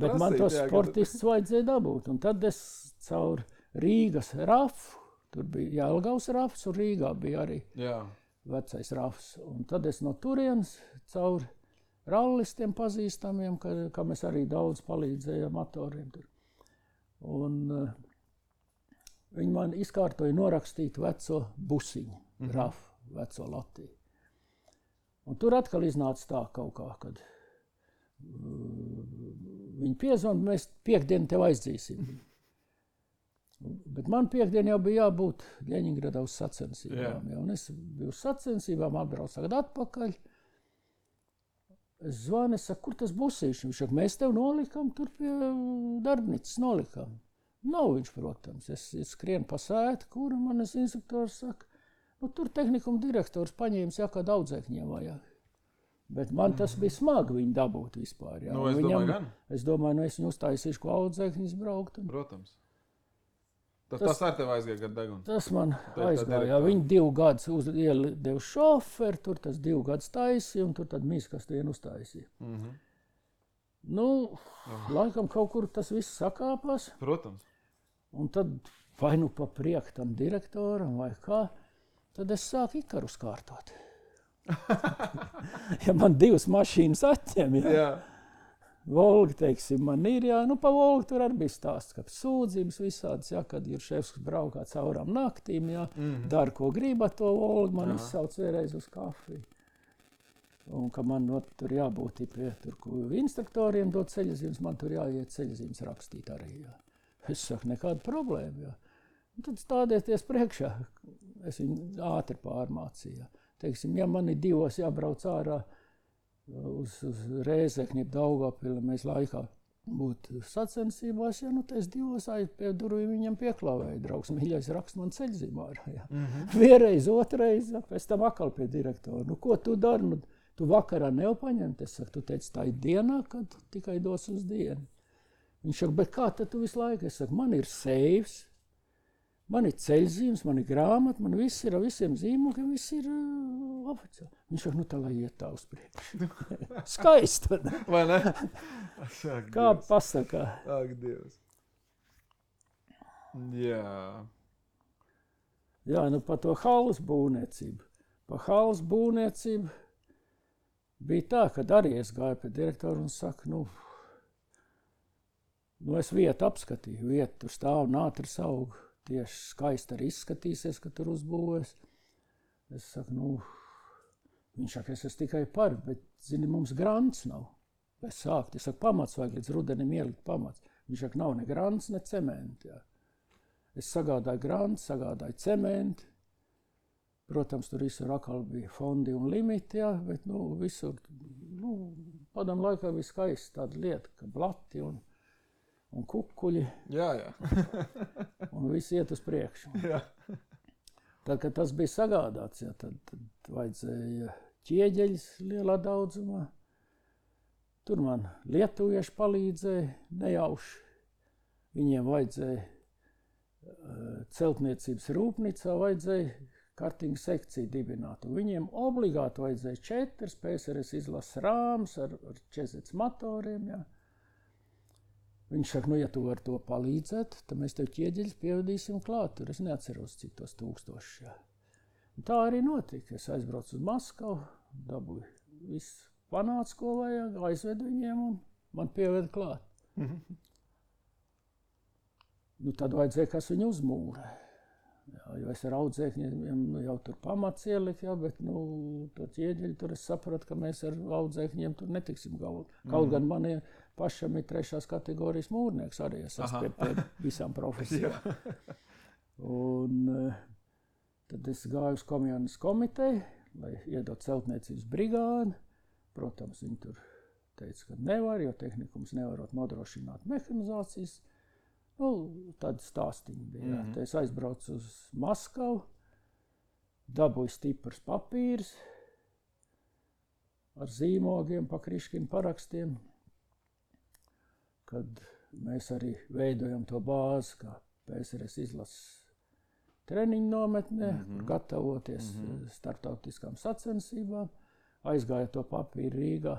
Bet man tos sportists vajadzēja dabūt. Un tad es caur Rīgas rafu, tur bija Jelgavas rafs, un Rīgā bija arī vecais rafs. Un tad es no turienes caur rallistiem pazīstamiem, kam es arī daudz palīdzēju motoriem tur. Un viņi man izkārtoja norakstīt veco busiņu, rafu, veco Latviju. Un tur atkal iznāca tā kaut kā, kad viņi piezvan, mēs piekdienu tev aizdzīsim. Bet man piekdien jau bija jābūt Ļeņingradā uz sacensībām. Un es biju uz sacensībām, atbraucu atpakaļ. Es zvanu, es saku, kur tas busīši? Viņš saka, mēs tev nolikam, tur pie darbnīcas nolikam. Nav viņš, protams. Es skrienu pa sētu, kur manis instruktors saka, nu tur tehnikuma direktors paņēmis, kā daudzēkņiem vajag. Bet man tas bija smagi viņu dabūt vispār. Jā. Nu, domāju gan. Es domāju, es viņu uztaisīšu, ko audzēkņus braukt. Protams. Tas ar tevi aizgāja gadu degunu? Tas man aizgāja. Viņi 2 gadus iedeva šoferi, tur tas 2 gadus taisīja, un tur tad mīskas vienu uztaisīja. Nu, laikam kaut kur tas viss sakāpās. Protams. Un tad vai nu pa prieku tam direktoram vai kā, tad es sāku Ikarus kārtot. Ja man 2 mašīnas atņem, jā. Volga, teiksim, man ir, jā. Nu, pa Volgu tur arī bija stāsts, ka sūdzības visādas, jā, kad ir šefs, kas braukā caurām naktīm, jā. Dara, ko grib ar to Volgu, man izsauc vēlreiz uz kafiju. Un ka man tur jābūt pie instruktoriem dot ceļzīmes, man tur jāiet ceļzīmes rakstīt arī, jā. Es saku, nekāda problēma, jā. Un tad stādieties priekšā, es viņu ātri pārmācīju, jā. Teiksim, ja man ir 2 jābrauc ārā uz Rēzekni, Daugavpili, mēs laikā būtu sacensībās, ja nu es 2 pie durvīm viņam pieklāvēju, draugs, mīļais rakst man ceļzīmā ārā, jā. Vienreiz, otrais, jā, pēc tam atkal pie direktora. Nu, ko tu dari? Nu, tu vakarā nepaņemt? Es saku, tu teici, tā ir dienā, kad tikai dos uz dienu. Viņš saka, bet kā tad tu visu laiku? Es saku, man ir seifs, man ir ceļzīmes, man ir grāmata, man viss ir ar visiem zīmogiem, viss ir oficiāli. Viņš saka, nu tā lai iet tā uz priekšu. Skaisti. Vai ne? Kā pasakā? Ak, Dievs. Jā. Jā, nu par to halles būvniecību. Par halles būvniecību bija tā, kad arī es gāju pie direktoru un saku, nu es vietu apskatīju, vietu tur stāv nātris aug. Tieši skaisti arī izskatīsies, ka tur uzbūvēs. Es saku, viņš saka, es esmu tikai par, bet, zini, mums grants nav. Es saku, pamats vajag līdz rudenim ielikt pamats. Viņš saka, nav ne grants, ne cementi. Jā. Es sagādāju grants, sagādāju cementi. Protams, tur visur atkal bija fondi un limiti, jā, bet, visur, padam laikā bija skaisti tāda lieta, ka blati un kukuļi. Jā. Un viss iet uz priekšu. Jā. Tad, kad tas bija sagādāts, jā, tad vajadzēja ķieģeļus lielā daudzumā. Tur man lietuvieši palīdzēja nejauši. Viņiem vajadzēja celtniecības rūpnīcā, vajadzēja kartinga sekciju dibināt. Un viņiem obligāti vajadzēja 4 PSRS izlases rāmas ar 40 motoriem, jā. Viņš saka, ja tu vari to palīdzēt, tad mēs tev ķieģeļus pievadīsim klāt. Tur es neatceros, cik tos 1000. Jā. Un tā arī notika. Es aizbraucu uz Maskavu, dabūju visu panācu, ko vajag, aizvedu viņiem un man pieveda klāt. Nu, tad vajadzēja, kas viņu uzmūrē. Jā, jo es ar audzēkņiem jau tur pamats ieliku, jā, bet to ķieģeļu tur es sapratu, ka mēs ar audzēkņiem tur netiksim galvu. Kaut gan man pašam ir 3. kategorijas mūrnieks, arī es esmu pie visām profesijām. Un tad es gāju uz komjānas komiteju, lai iedot celtniecības brigādi. protams, viņi tur teica, ka nevar, jo tehnikums nevarot nodrošināt mehanizācijas. Nu, tādi stāstiņi bija. Te es aizbraucu uz Maskavu, dabūju stiprs papīrs ar zīmogiem, pa Kriškinu parakstiem, kad mēs arī veidojam to bāzi, kā PSRS izlases treniņu nometnē, gatavoties starptautiskām sacensībām. Aizgāja to papīru Rīgā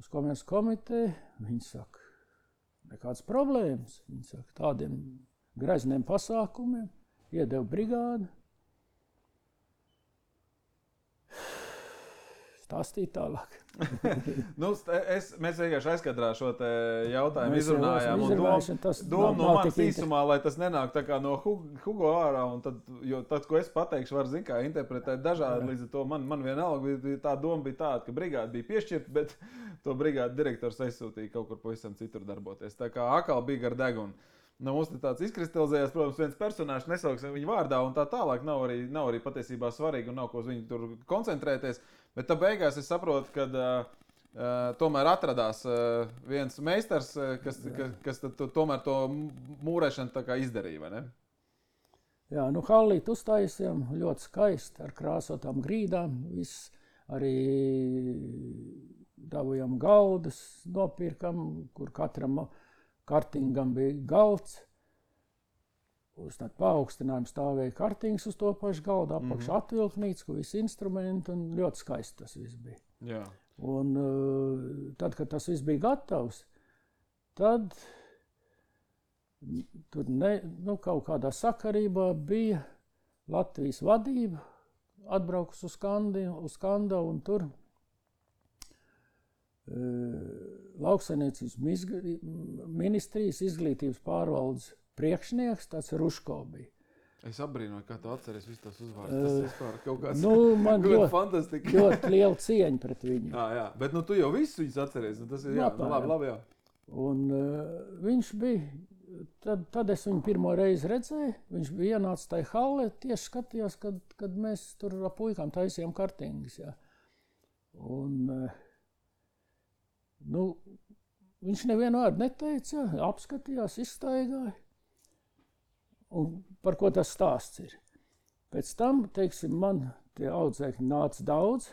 uz komerces komiteju. Viņi saka, nekādas problēmas. Viņi saka, tādiem grezniem pasākumiem iedeva brigādi. Stāstīt tālāk. Mēs vienkārši aizkadrā šo te jautājumu izrunājām. Doma no manas īsumā, lai tas nenāk tā kā no Hugo ārā. Jo tad, ko es pateikšu, var zin kā interpretēt dažādi. Līdz ar to man vienalga tā doma bija tāda, ka brigāde bija piešķirta, bet to brigāde direktors aizsūtīja kaut kur pavisam citur darboties. Tā kā akal bija gar degunu. Mums tāds izkristalizējās, protams, viens personāžs, nesauksim viņu vārdā un tā tālāk. Nav arī patiesībā svarīgi un nav ko uz viņu tur koncentrēties. Bet tā beigās es saprotu, ka tomēr atradās viens meistars, kas tomēr to mūrēšanu tā kā izdarīja, vai ne? Jā, halliti uztaisījām ļoti skaisti ar krāsotām grīdām. Viss arī dabujām galdus, nopirkam, kur katram kartingam bija galds. Uz tādu paaugstinājumu stāvēja kartings uz to pašu galdu, apakšā atvilknīts, kur visi instrumenti, un ļoti skaisti tas viss bija. Jā. Un tad, kad tas viss bija gatavs, tad tur kaut kādā sakarībā bija Latvijas vadība, atbraukus uz Skandavu, un tur lauksaimniecības ministrijas izglītības pārvaldes priekšnieks, tāds Ruško bija. Es apbrīnoju, kā tu atceries visu tos uzvārdus. Tas vispār kaut kāds man ļoti liela cieņa pret viņu. Jā, bet tu jau visu viņus atceries. Tas ir labi, jā. Un viņš bija, tad es viņu pirmo reizi redzēju, viņš bija ienācis tajā hallē, tieši skatījās, kad mēs tur ar puikām taisījām kartingus. Jā. Un viņš nevienu vārdu neteica, apskatījās, izstaigāja. Un par ko tas stāsts ir? Pēc tam, teiksim, man tie audzēkņi nāca daudz,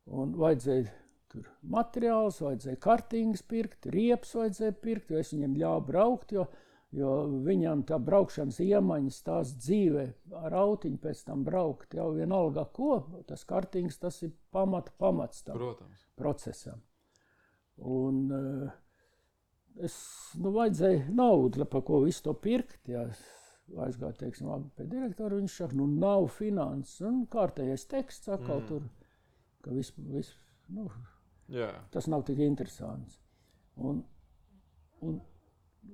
un vajadzēja tur materiāls, vajadzēja kartingas pirkt, riepas vajadzēja pirkt, jo es viņiem ļāvu braukt, jo viņam tā braukšanas iemaņas tās dzīvē ar autiņu pēc tam braukt, jau vienalga ko, tas kartings, tas ir pamats tam procesam. Un vajadzēja naudu, pa ko visu to pirkt, jā. Aizgāja, teiksim, pie direktora, viņš saka, nav finanses, un kārtējais teksts atkal tur, ka tas nav tik interesants. Un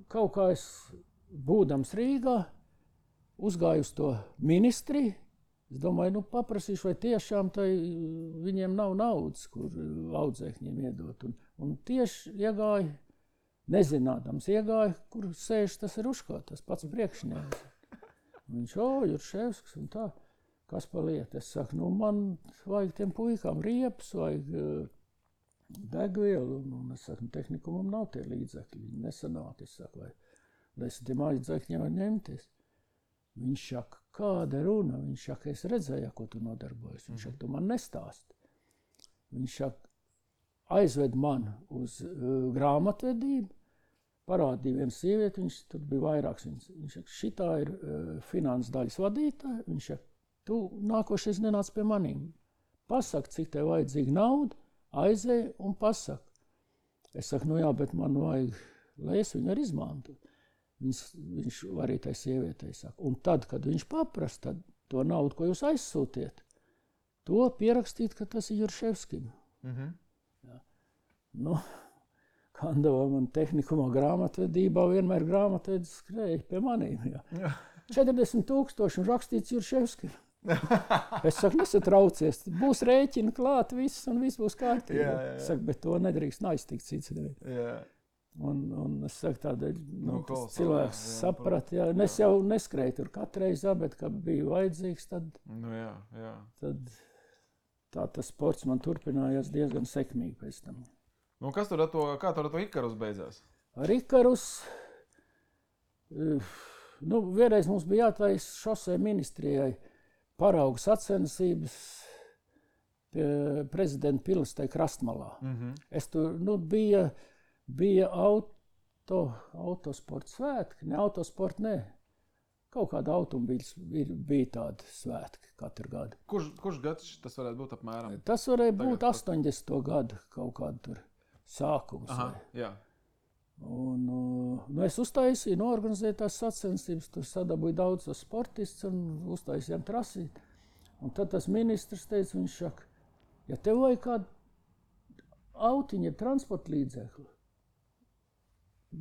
kaut kā es, būdams Rīgā, uzgāju uz to ministriju, es domāju, paprasīšu, vai tiešām viņiem nav naudas, kur audzēkņiem iedot, un tieši iegāju, nezinādams iegāja, kur sēž tas Ruško, tas pats priekšnieks. Viņš, Jurševskis un tā, kas pa lietu. Es saku, man vajag tiem puikām riepas, vajag degvielu, un es saku, tehnikumam nav tie līdzekļi, viņi nesanāk, es saku, vai es tiem līdzekļiem var ņemties. Viņš saka, kāda runa? Viņš saka, es redzēju, ko tu nodarbojies. Viņš saka, tu man nestāsti. Viņš saka, aizved man uz grāmatvedību, parādīja vienu sievieti, viņš tur bija vairāks. Viņš saka, šitā ir finanses daļas vadītāja. Viņš saka, tu nākošais nenāc pie manīm. Pasaka, cik tev vajadzīga nauda, aizēj un pasaka. Es saku, jā, bet man vajag, lai es viņu arī izmantu. Viņš arī tai sievietei saka. Un tad, kad viņš paprasa, tad to naudu, ko jūs aizsūtiet, to pierakstīt, ka tas ir Jurševskim. Kandavā man tehnikumā grāmatvedībā vienmēr grāmatvedis skrēja pie manīm. Jā. 40,000 un rakstīts Jurševskim. Es saku, nesatraucies, būs rēķina klāt viss un viss būs kārtībā. Es saku, bet to nedrīkst aiztikt cits nevienu. Un es saku, tādēļ cilvēks saprat, jā. Es jau neskrēju tur katreiz, bet, kad bija vajadzīgs, tad tā tas sports man turpinājās diezgan sekmīgi pēc tam. Nu, kā tur ar to Ikarus beidzās? Ar Ikarus, vienreiz mums bija jātaisa šosei ministrijai paraugu sacensības pie prezidenta pilis tai krastmalā. Es tur, bija autosporta svētki, ne autosporta, ne. Kaut kāda automobīļas bija tāda svētki katru gadu. Kurš gads tas varētu būt apmēram? Tas varēja būt 80. gadu kaut kādu tur sākums. Aha, jā. Un, es uztaisīju, norganizēju tās sacensības, tur sadabūju daudz sportistus un uztaisījām trasīt. Un tad tas ministrs teica, viņš saka, ja tev vajag kādu autiņu, transporta līdzekli,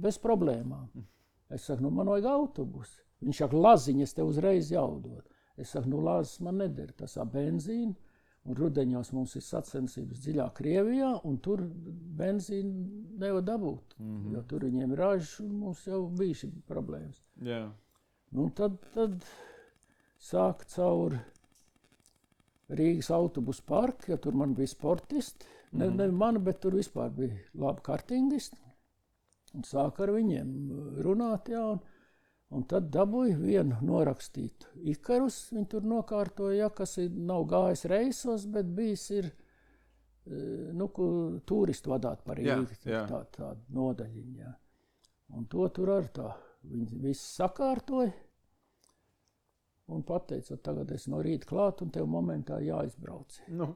bez problēmām. Es saku, man vajag autobusu. Viņš saka, laziņas tev uzreiz jaudot. Es saku, lazes man neder, tas benzīna. Un rudeņos mums ir sacensības dziļā Krievijā, un tur benzīnu nevar dabūt. Jo tur viņiem ir ražas, un mums jau bija šī problēmas. Yeah. Nu, tad sāk caur Rīgas autobusu parku, jo tur man bija sportisti. Ne mani, bet tur vispār bija labi kartingisti. Un sāk ar viņiem runāt, jā, un tad dabūju vienu norakstītu Ikarus. Viņi tur nokārtoja, kas nav gājis reisos, bet bijis ir, turistu vadāt par Rīgu, tāda nodaļiņa. Jā. Un to tur ar tā, viņi visi sakārtoja un pateica, tagad es no rīta klāt un tev momentā jāizbrauc.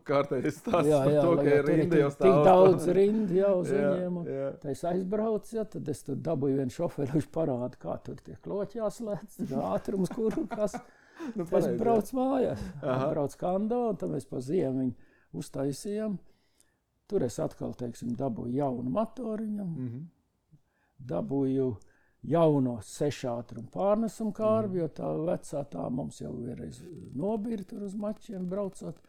Kārtējais stāsts par to, ka ir rinda jau stāv. Tik daudz rindi jau uz viņiem. Tā es aizbraucu, tad es tur dabūju vienu šoferi, viņš parāda, kā tur tie kloķi jāslēdz, ātrums, kuru, kas. Es braucu mājās, braucu Kando, un tad mēs pa ziemu viņu uztaisījām. Tur es atkal, dabūju jaunu motoriņam, dabūju jauno 6 ātrumu pārnesumu kārbi, jo tā vecā tā mums jau vienreiz nobīra tur uz mačiem braucot.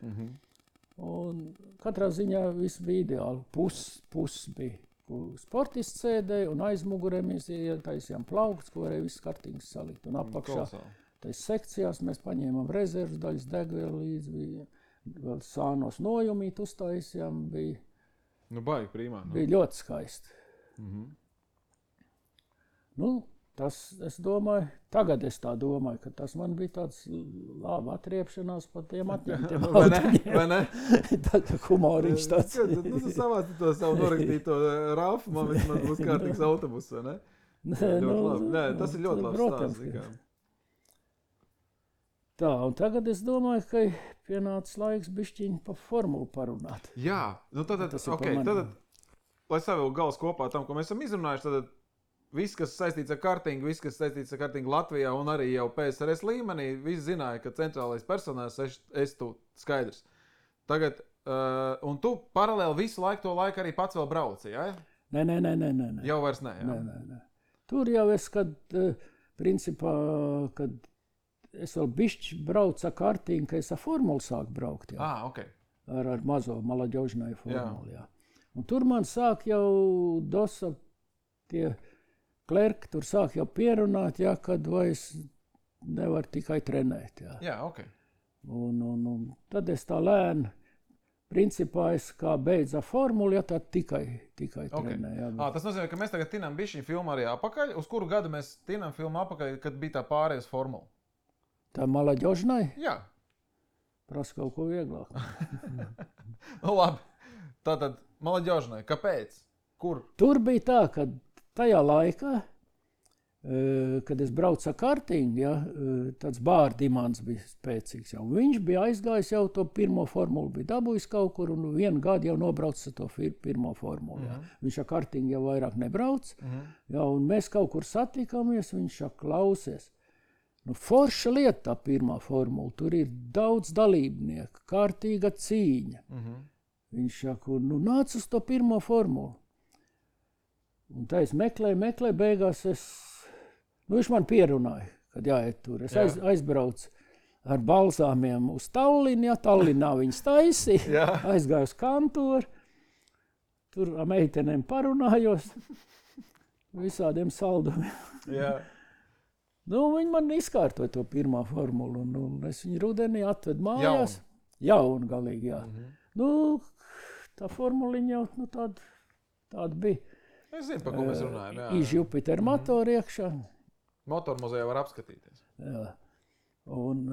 Un katrā ziņā viss bija ideāli. Pus bija sportists sēdēja, un aiz mugurē mēs ietaisījām plaukts, ko varēja viss kartīgs salikt. Un apakšā tais sekcijās mēs paņēmām rezervas daļas, degvielu līdzi, vēl sānos nojumīt uztaisījām. Baigi prīmā. Bija ļoti skaisti. Tas, es domāju, tagad es tā domāju, ka tas man bija tāds laba atriepšanās par tiem atņemtiem autiņiem. Vai ne? Tā humoriņš tāds. Tu savāci to savu norakstīto rafu, man būs kārtīgs autobus, vai ne? Nē, tas ir ļoti labs stāsts. Tā, un tagad es domāju, ka pienācis laiks bišķiņ pa formulu parunāt. Jā, tad, lai savilk gals kopā tam, ko mēs esam izrunājuši, tad viss, kas saistīts ar kartingu, viss, kas saistīts ar kartingu Latvijā un arī jau PSRS līmenī, visi zināja, ka centrālais personāls esi tu skaidrs. Tagad, un tu paralēli visu to laiku arī pats vēl brauci, jā? Nē. Jau vairs ne, jā? Nē. Tur jau es, principā, kad es vēl bišķi braucu ar kartingu, ka es ar formulu sāku braukt, jā. Okay. Ar mazo Malaģožnai formulu, jā. Un tur man sāk jau dosa tie klerki, tur sāk jau pierunāt, jā, kad vairs nevar tikai trenēt, jā. Jā, ok. Un tad es tā lēni, principā es kā beidzu formulu, ja tad tikai trenēju. Jā, bet... Tas nozīmē, ka mēs tagad tinām bišķiņu filmu arī apakaļ. Uz kuru gadu mēs tinām filmu apakaļ, kad bija tā pārējais formula? Tā Malaģožnai? Jā. Prasa kaut ko vieglāk. Labi. Tātad Malaģožnai, kāpēc? Kur? Tur bija tā, ka tajā laikā, kad es braucu ar kartingu, ja, tāds Bārdimans bija spēcīgs. Jau. Viņš bija aizgājis jau to pirmo formulu, bija dabūjis kaut kur un vienu gadu jau nobraucis ar to pirmo formulu. Ja. Viņš ar kartingu jau vairāk nebrauc. Ja, un mēs kaut kur satikāmies, viņš klausies. Forša lieta tā pirmā formula, tur ir daudz dalībnieku, kārtīga cīņa. Viņš saka, nāc uz to pirmo formulu. Un tā es meklēju, beigās viņš man pierunāja, kad jāiet tur. Es aizbraucu ar balzāmiem uz Tallinu, ja Tallinā viņas taisīja, aizgāju uz kantoru, tur ar meitenēm parunājos, visādiem saldumiem. Viņi man izkārtoja to pirmā formulu, un es viņu rudenī atvedu mājās. Jaungalīgi, jā. Nu, tā formuliņa jau nu, tāda bija. Es zinu, par ko mēs runājam. Iz Jupiter motoru iekšā. Motormuzejā var apskatīties. Jā. Un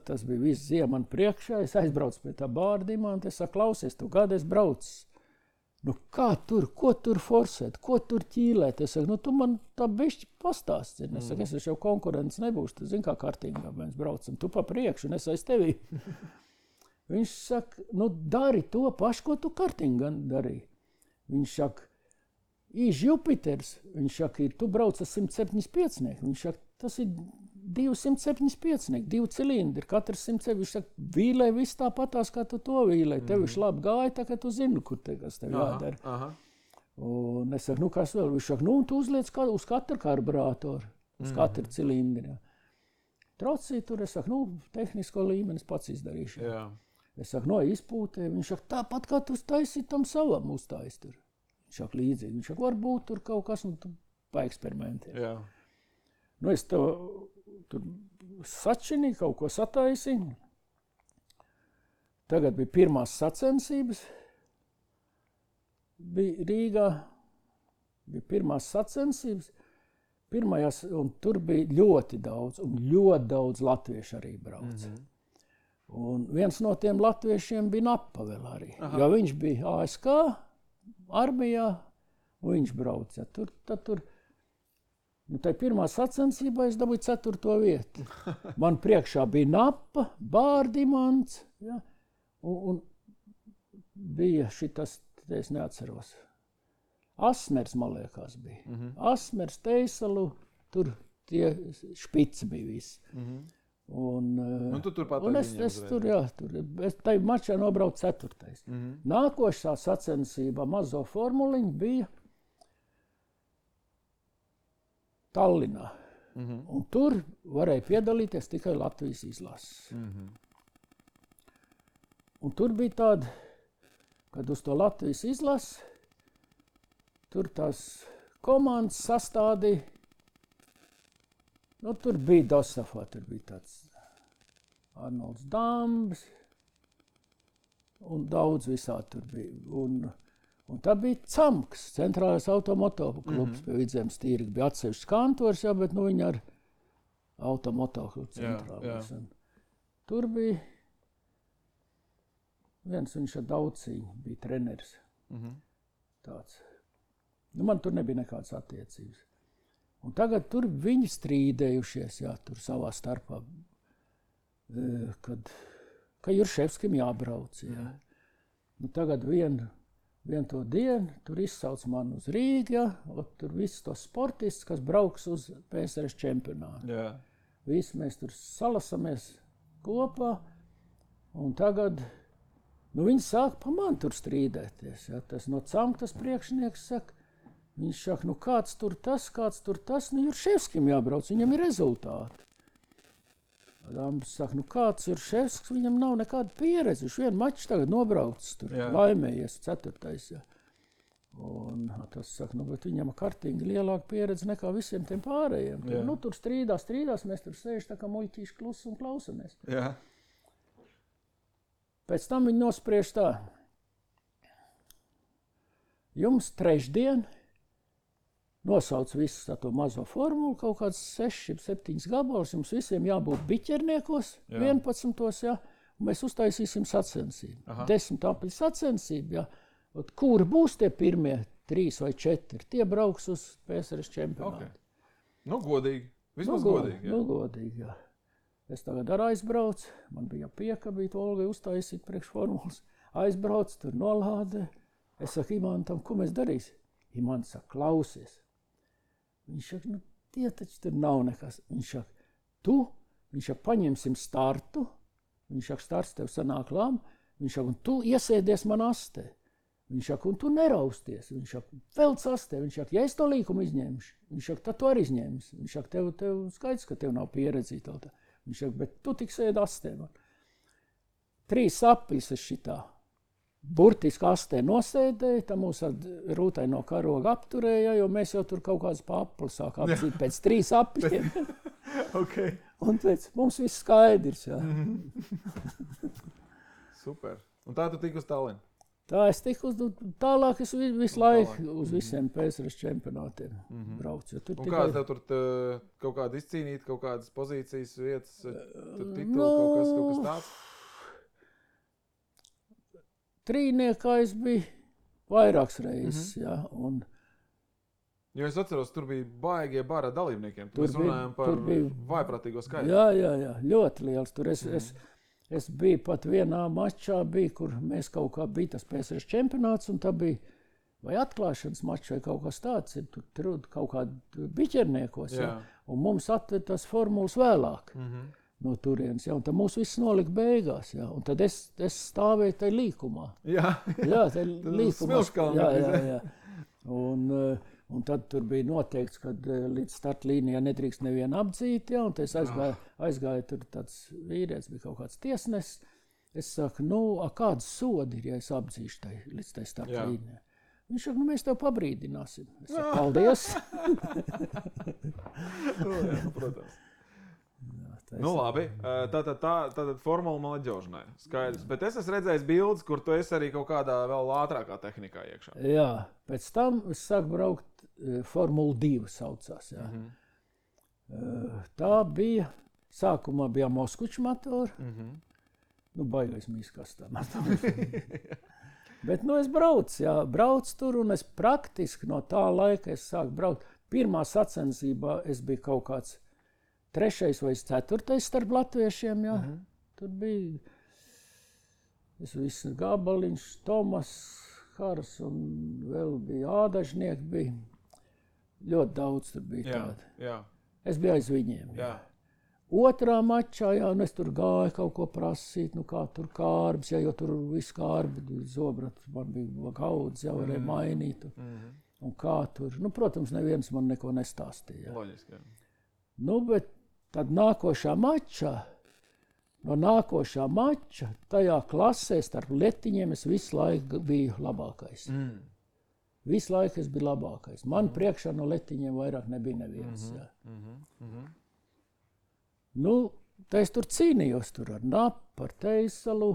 tas bija viss ziema man priekšā. Es aizbraucu pie tā bārdimā un es saku, klausies, tu gadu es braucu. Nu kā tur, ko tur forsēt, ko tur ķīlēt? Es saku, nu tu man tā bišķi pastāsti. Es saku, es jau konkurents nebūšu, tu zini kā kartingā mēs braucam. Tu pa priekšu un es aiz tevi. Viņš saka, nu dari to pašu, ko tu kartingā darīji. Viņš saka, Iz Jupiters, viņš saka, tu brauc ar 175. Viņš saka, tas ir 275, 2 cilindri, katrs 100. Viņš saka, vīlē viss tāpatās, kā tu to vīlē. Tev viņš labi gāja, tā kā tu zini, kur kas tev jādara. Un es saku, nu kas vēl? Viņš saka, nu tu uzliec uz katru karburātoru, uz katru cilindri. Trocī tur, es saku, nu tehnisko līmeni pats izdarīšu. Jā. Es saku, no izpūtē, viņš saka, tāpat kā tu taisīt tam savam uztais tur. Viņš saka līdzīgi, viņš saka, varbūt tur kaut kas, un tu paeksperimentē. Jā. Nu, es tur sačinīju, kaut ko sataisīju. Tagad bija pirmās sacensības. Bija Rīgā, bija pirmās sacensības. Pirmajās, un tur bija ļoti daudz latviešu arī brauca. Un viens no tiem latviešiem bija Napa vēl arī, jo viņš bija ASK armijā, un viņš brauca. Tur, nu, tai pirmā sacensībā es dabūju 4. vietu. Man priekšā bija Napa, Bārdimants, ja, un bija šitas, es neatceros. Asmers, man liekas, bija. Asmers, Teisalu, tur tie špici bija visi. Un tu turpat es tur, jā, es tai mačā nobraucu 4. Nākošā sacensībā mazo formuliņu bija Tallinā. Un tur varēja piedalīties tikai Latvijas izlases. Un tur bija tāda, kad uz to Latvijas izlases, tur tās komandas sastādīja. Nu, tur bija Dosafā, tur bija tāds Arnolds Dambs, un daudz visā tur bija. Un tā bija Camks, centrālais automoto klubs pie Vidzemes tīrga. Bija atsevišķs kantors, jā, bet nu viņi ar automoto klubu centrālais. Tur bija viens, viņš ar Dauciņu bija treneris. Tāds. Nu, man tur nebija nekādas attiecības. Un tagad tur viņi strīdējušies, jā, tur savā starpā, ka Jurševskim jābrauc, jā. Nu, tagad vien to dienu, tur izsauc man uz Rīgu, jā, tur viss tos sportists, kas brauks uz PSRS čempionātu. Jā. Visi mēs tur salasamies kopā, un tagad, nu, viņi sāk pa man tur strīdēties, jā. Tas no Camkas priekšnieks saka, viņš saka, nu kāds tur tas, nu Jurševskim jābrauc, viņam ir rezultāti. Dambs saka, nu kāds Jurševskis, viņam nav nekāda pieredze, viņš vienu maču tagad nobraucis tur, laimējies 4. Jā. Un tas saka, nu bet viņam kartingi lielāka pieredze nekā visiem tiem pārējiem. Tur, nu tur strīdās, mēs tur sēž tā kā muļķīši klusi un klausamies. Jā. Pēc tam viņi nospriež tā, jums trešdien nosauc visu to mazo formulu, kaut kāds 6-7 gabalus, jums visiem jābūt biķerniekos, 11. Jā, un mēs uztaisīsim sacensību. 10 apļu sacensību, jā. Kuri būs tie pirmie 3 vai 4, tie brauks uz PSRS čempionātu. Okay. Nu, godīgi. Vismaz godīgi, jā. Nu, godīgi, jā. Es tagad ar aizbraucu, man bija piekabīt Olgai uztaisīt priekš formulas. Aizbraucu, tur nolādē. Es saku Imantam, ko mēs darīsim? Imants saka, klausies. Viņš saka, nu, tie taču tur nav nekas. Viņš saka, paņemsim startu. Viņš saka, starts tev sanāk labi. Viņš saka, un tu iesēdies man astē. Viņš saka, un tu nerausties. Viņš saka, velc astē. Viņš saka, ja es to līkumu izņemšu. Viņš saka, tad tu arī izņemsi. Viņš saka, tev skaidrs, ka tev nav pieredzīta. Viņš saka, bet tu tik sēdi astē man. 3 apļus es šitā. Burtiski astē nosēdēja, tā mūs ar rūtaino karogu apturēja, jo mēs jau tur kaut kādas pa apli sāk apzīt pēc 3 apļiem. Okay. Un teica, mums viss skaidrs. Jā. Super. Un tā tu tiki uz Tallinu? Tā es tiku tālāk, es visu laiku uz visiem PSRS čempionātiem braucu. Un kāds tev tur kaut kāda izcīnīt, kaut kādas pozīcijas, vietas, tituli, kaut kas tāds? Trīniekā es biju vairākas reizes, jā. Un jo es atceros, tur bija baigie bara dalībniekiem. Mēs runājam par vaiprātīgo skaitu. Jā, ļoti liels. Tur es biju pat vienā mačā, kur mēs kaut kā bija tas PSRS čempionāts, un tā bija vai atklāšanas mačs vai kaut kas tāds, tur kaut kādi biķerniekos, jā. Un mums atved tas formulas vēlāk no turienes, jā, un tad mūs viss nolika beigās, jā, un tad es stāvēju tai līkumā. Jā, tai līkumā. Jā. Un tad tur bija noteikts, ka līdz startlīnijā nedrīkst nevienu apdzīt, jā, un tad es aizgāju tur tāds vīrietis, bija kaut kāds tiesnesis. Es saku, kāds sodi ir, ja es apdzīšu līdz tai startlīnijā? Viņš saka, mēs tev pabrīdināsim. Es saku, paldies. Protams. Labi, tātad formula malaģošanai, skaidrs. Bet es esmu redzējis bildes, kur tu esi arī kaut kādā vēl ātrākā tehnikā iekšā. Jā, pēc tam es sāku braukt Formula 2 saucās, jā. Tā bija, sākumā bija Moskviča motori, baigais mīskās tā motori. Bet, es braucu tur, un es praktiski no tā laika es sāku braukt. Pirmā sacensībā es biju kaut kāds 3. vai 4. starp latviešiem, jā. Tur bija viss Gabaliņš, Tomas, Hars un vēl bija Ādažnieki bija. Ļoti daudz tur bija tādi. Jā. Es biju aiz viņiem. Jā. Otrā mačā, un es tur gāju kaut ko prasīt, kā tur kārbs, jo tur viss kārbi, zobrats, man bija gaudz, varēja mainīt. Un kā tur, protams, neviens man neko nestāstīja. Loģiski, jā. Bet tad nākošā mača, tajā klasē starp letiņiem es visu laiku biju labākais. Visu laiku es biju labākais. Man priekšā no letiņiem vairāk nebija neviens. Tā es tur cīnījos ar Napu, ar Teisalu.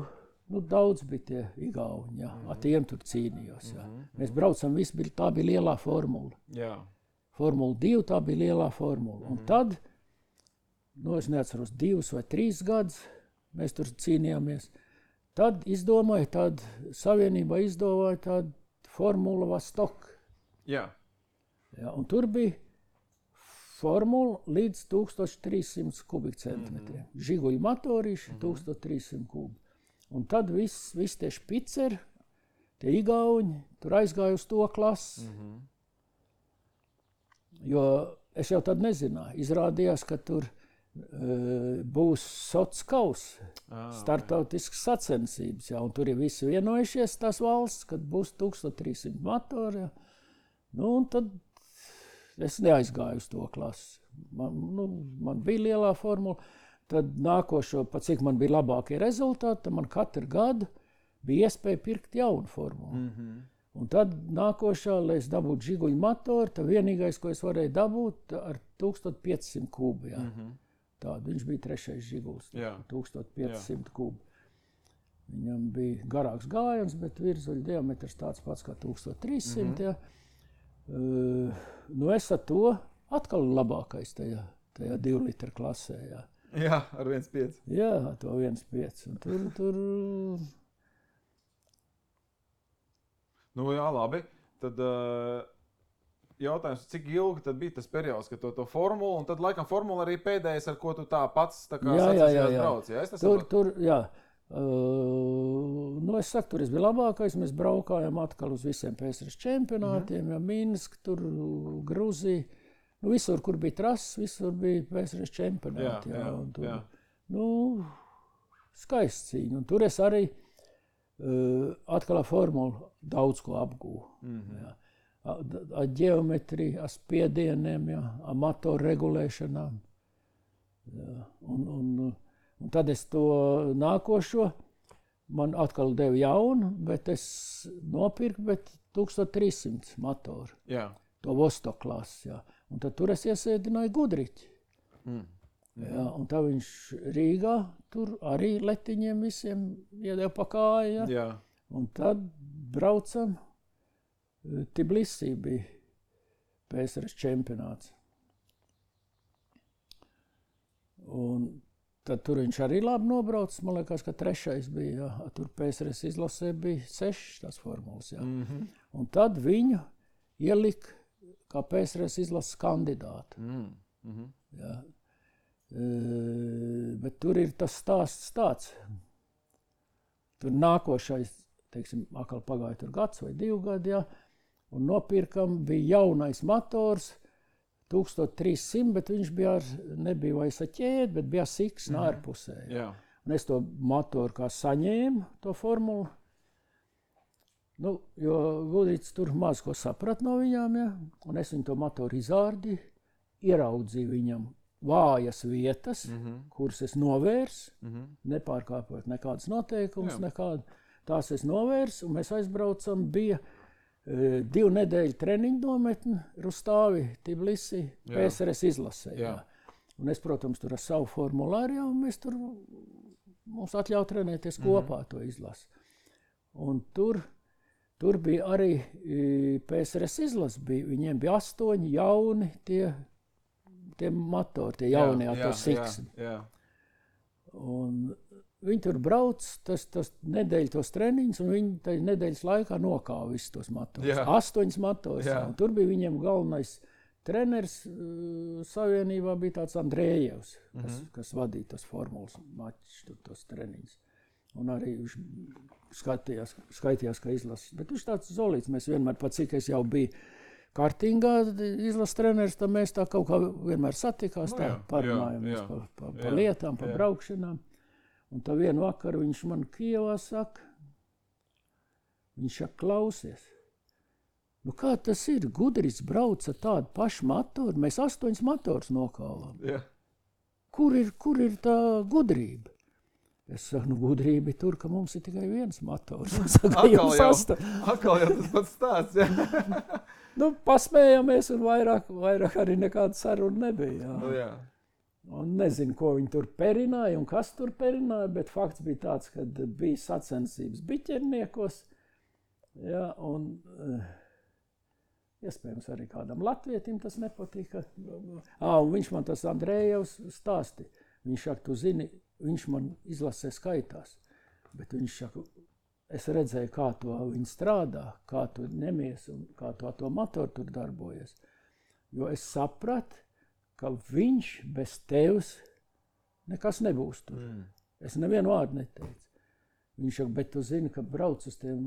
Daudz bija tie igauņi, ar tiem tur cīnījos. Mēs braucam, tā bija lielā formula. Jā. Formula 2, tā bija lielā formula. Un tad, es neatceros, 2 vai 3 gadus mēs tur cīnījāmies. Tad Savienībā izdomāja tādu Formula Vostok. Jā. Un tur bija formula līdz 1300 kubikcentimetriem. Žiguļu motorīši 1300 kubi. Un tad viss tie špiceri, tie igauņi, tur aizgāja uz to klasi. Jo es jau tad nezināju. Izrādījās, ka tur būs Sotskaus, startautiskas sacensības, un tur ir visi vienojušies tās valsts, kad būs 1300 motori. Un tad es neaizgāju uz to klasi. Man bija lielā formula. Tad nākošo, pat cik man bija labākie rezultāti, tad man katru gadu bija iespēja pirkt jaunu formulu. Un tad nākošā, lai es dabūtu žiguļu motoru, tad vienīgais, ko es varēju dabūt, ar 1500 kubu. Tādu, viņš bija 3. žiguls, 1500 kubu. Viņam bija garāks gājiens, bet virzuļu diametrs tāds pats kā 1300. Es ar to atkal labākais tajā 2 litru klasē. Jā, ar 1,5. Jā, to 1,5. Un tur... Jā, labi. Tad jautājums, cik ilgi tad bija tas periods, kad to formulu, un tad laikam formula arī pēdējais, ar ko tu tā pats sacensībās brauc. Jā. Es saku, tur es biju labākais, mēs braukājām atkal uz visiem PSRS čempionātiem, Minsk, tur Gruzija. Visur, kur bija trases, visur bija PSRS čempionāti. Skaists cīņa. Un tur es arī atkal ar formulu daudz ko apgūvu. Ar ģeometriju, ar spiedieniem, ar motoru regulēšanām. Un tad es to nākošo, man atkal deva jaunu, bet es nopirku 1300 motoru. Jā. To Vostok klasi, Un tad tur es iesēdināju Gudriķi. Jā, un tā viņš Rīgā tur arī letiņiem visiem iedeva pa kāju. Jā. Un tad braucam, Tbilisī bija PSRS čempionāts. Un tad tur viņš arī labi nobrauc, man liekas, ka 3. bija, jā. Tur PSRS izlasē bija 6 tās formulas, jā. Un tad viņu ielika kā PSRS izlases kandidātu. Jā. Bet tur ir tas stāsts tāds. Tur nākošais, teiksim, atkal pagāja tur gads vai 2 gadi, jā, un nopirkam, bija jaunais motors, 1300, bet viņš bija nebija vairs ar ķēdi, bet bija siksna ārpusē. Jā. Un es to motoru kā saņēmu, to formulu. Nu, jo Gudrīts tur maz ko saprat no viņām, ja? Un es viņu to motoru izārdīju, ieraudzīju viņam vājas vietas, kuras es novērsu, nepārkāpot nekādas noteikumus, nekādu. Tās es novērsu, un mēs aizbraucam, bija 2 nedēļu treniņu nometni Rustāvi, Tbilisī, PSRS izlasē. Jā. Un es, protams, tur ar savu formulāru, un mēs tur, mums atļauj trenēties kopā to izlasi. Un tur bija arī PSRS izlase, viņiem bija 8 jauni tie motori, tie jaunie ar to siksni. Un viņi tur brauc, tas nedēļu tos treniņus, un viņi tai nedēļas laikā nokāva visus tos motorus. 8 motorus. Tur bija viņiem galvenais treneris savienībā, bija tāds Andrējevs, kas vadīja tos formulas mačus, tos treniņus. Un arī viņš skaitījās, ka izlases. Bet viņš tāds zolīts, mēs vienmēr, pat cik es jau biju kartingā izlases treneris, tad mēs tā kaut kā vienmēr satikās, tā parunājamies pa lietām, pa braukšanām. Un tā vienu vakaru viņš man Kijevā saka, viņš saka, klausies, nu kā tas ir, Gudrīts brauca tādu pašu motoru, mēs 8 motors nokāvām. Kur ir tā gudrība? Es saku, nu gudrība ir tur, ka mums ir tikai viens motors. Atkal jau tas pats stāsts, jā. Nu, pasmējāmies un vairāk arī nekāda saruna nebija. Jā. Nu, jā. Un nezinu, ko viņi tur perināja un kas tur perināja, bet fakts bija tāds, ka bija sacensības biķerniekos. Jā, un iespējams arī kādam latvietim tas nepatika. Un viņš man tas Andrējevs stāsti. Viņš saka, tu zini, viņš man izlasē skaitās, bet viņš saka, es redzēju, kā to viņi strādā, kā tu nemies un kā to motoru tur darbojas. Jo es sapratu, ka viņš bez tevis nekas nebūs tur. Es nevienu vārdu neteicu. Viņš saka, bet tu zini, ka brauc uz tiem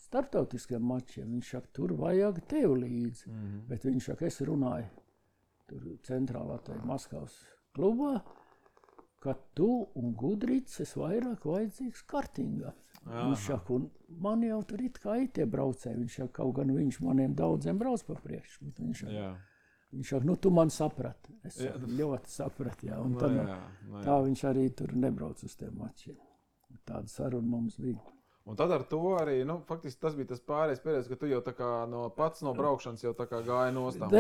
starptautiskiem mačiem. Viņš saka, tur vajag tev līdzi. Bet viņš saka, es runāju tur centrālā tajā Maskavas klubā, ka tu un Gudrīts es vairāk vajadzīgs kartingā. Viņš saka, un man jau tur it kā tie braucēji. Viņš saka, kaut gan viņš maniem daudziem brauc pa priekšu. Viņš saka, nu tu man saprati. Es saku, ļoti saprati, jā. Un tad, tā viņš arī tur nebrauc uz tiem mačiem. Tāda saruna mums bija. Un tad ar to arī, nu, faktiski tas bija tas pārējais periods, ka tu jau tā kā pats no braukšanas jau tā kā gāja nostām.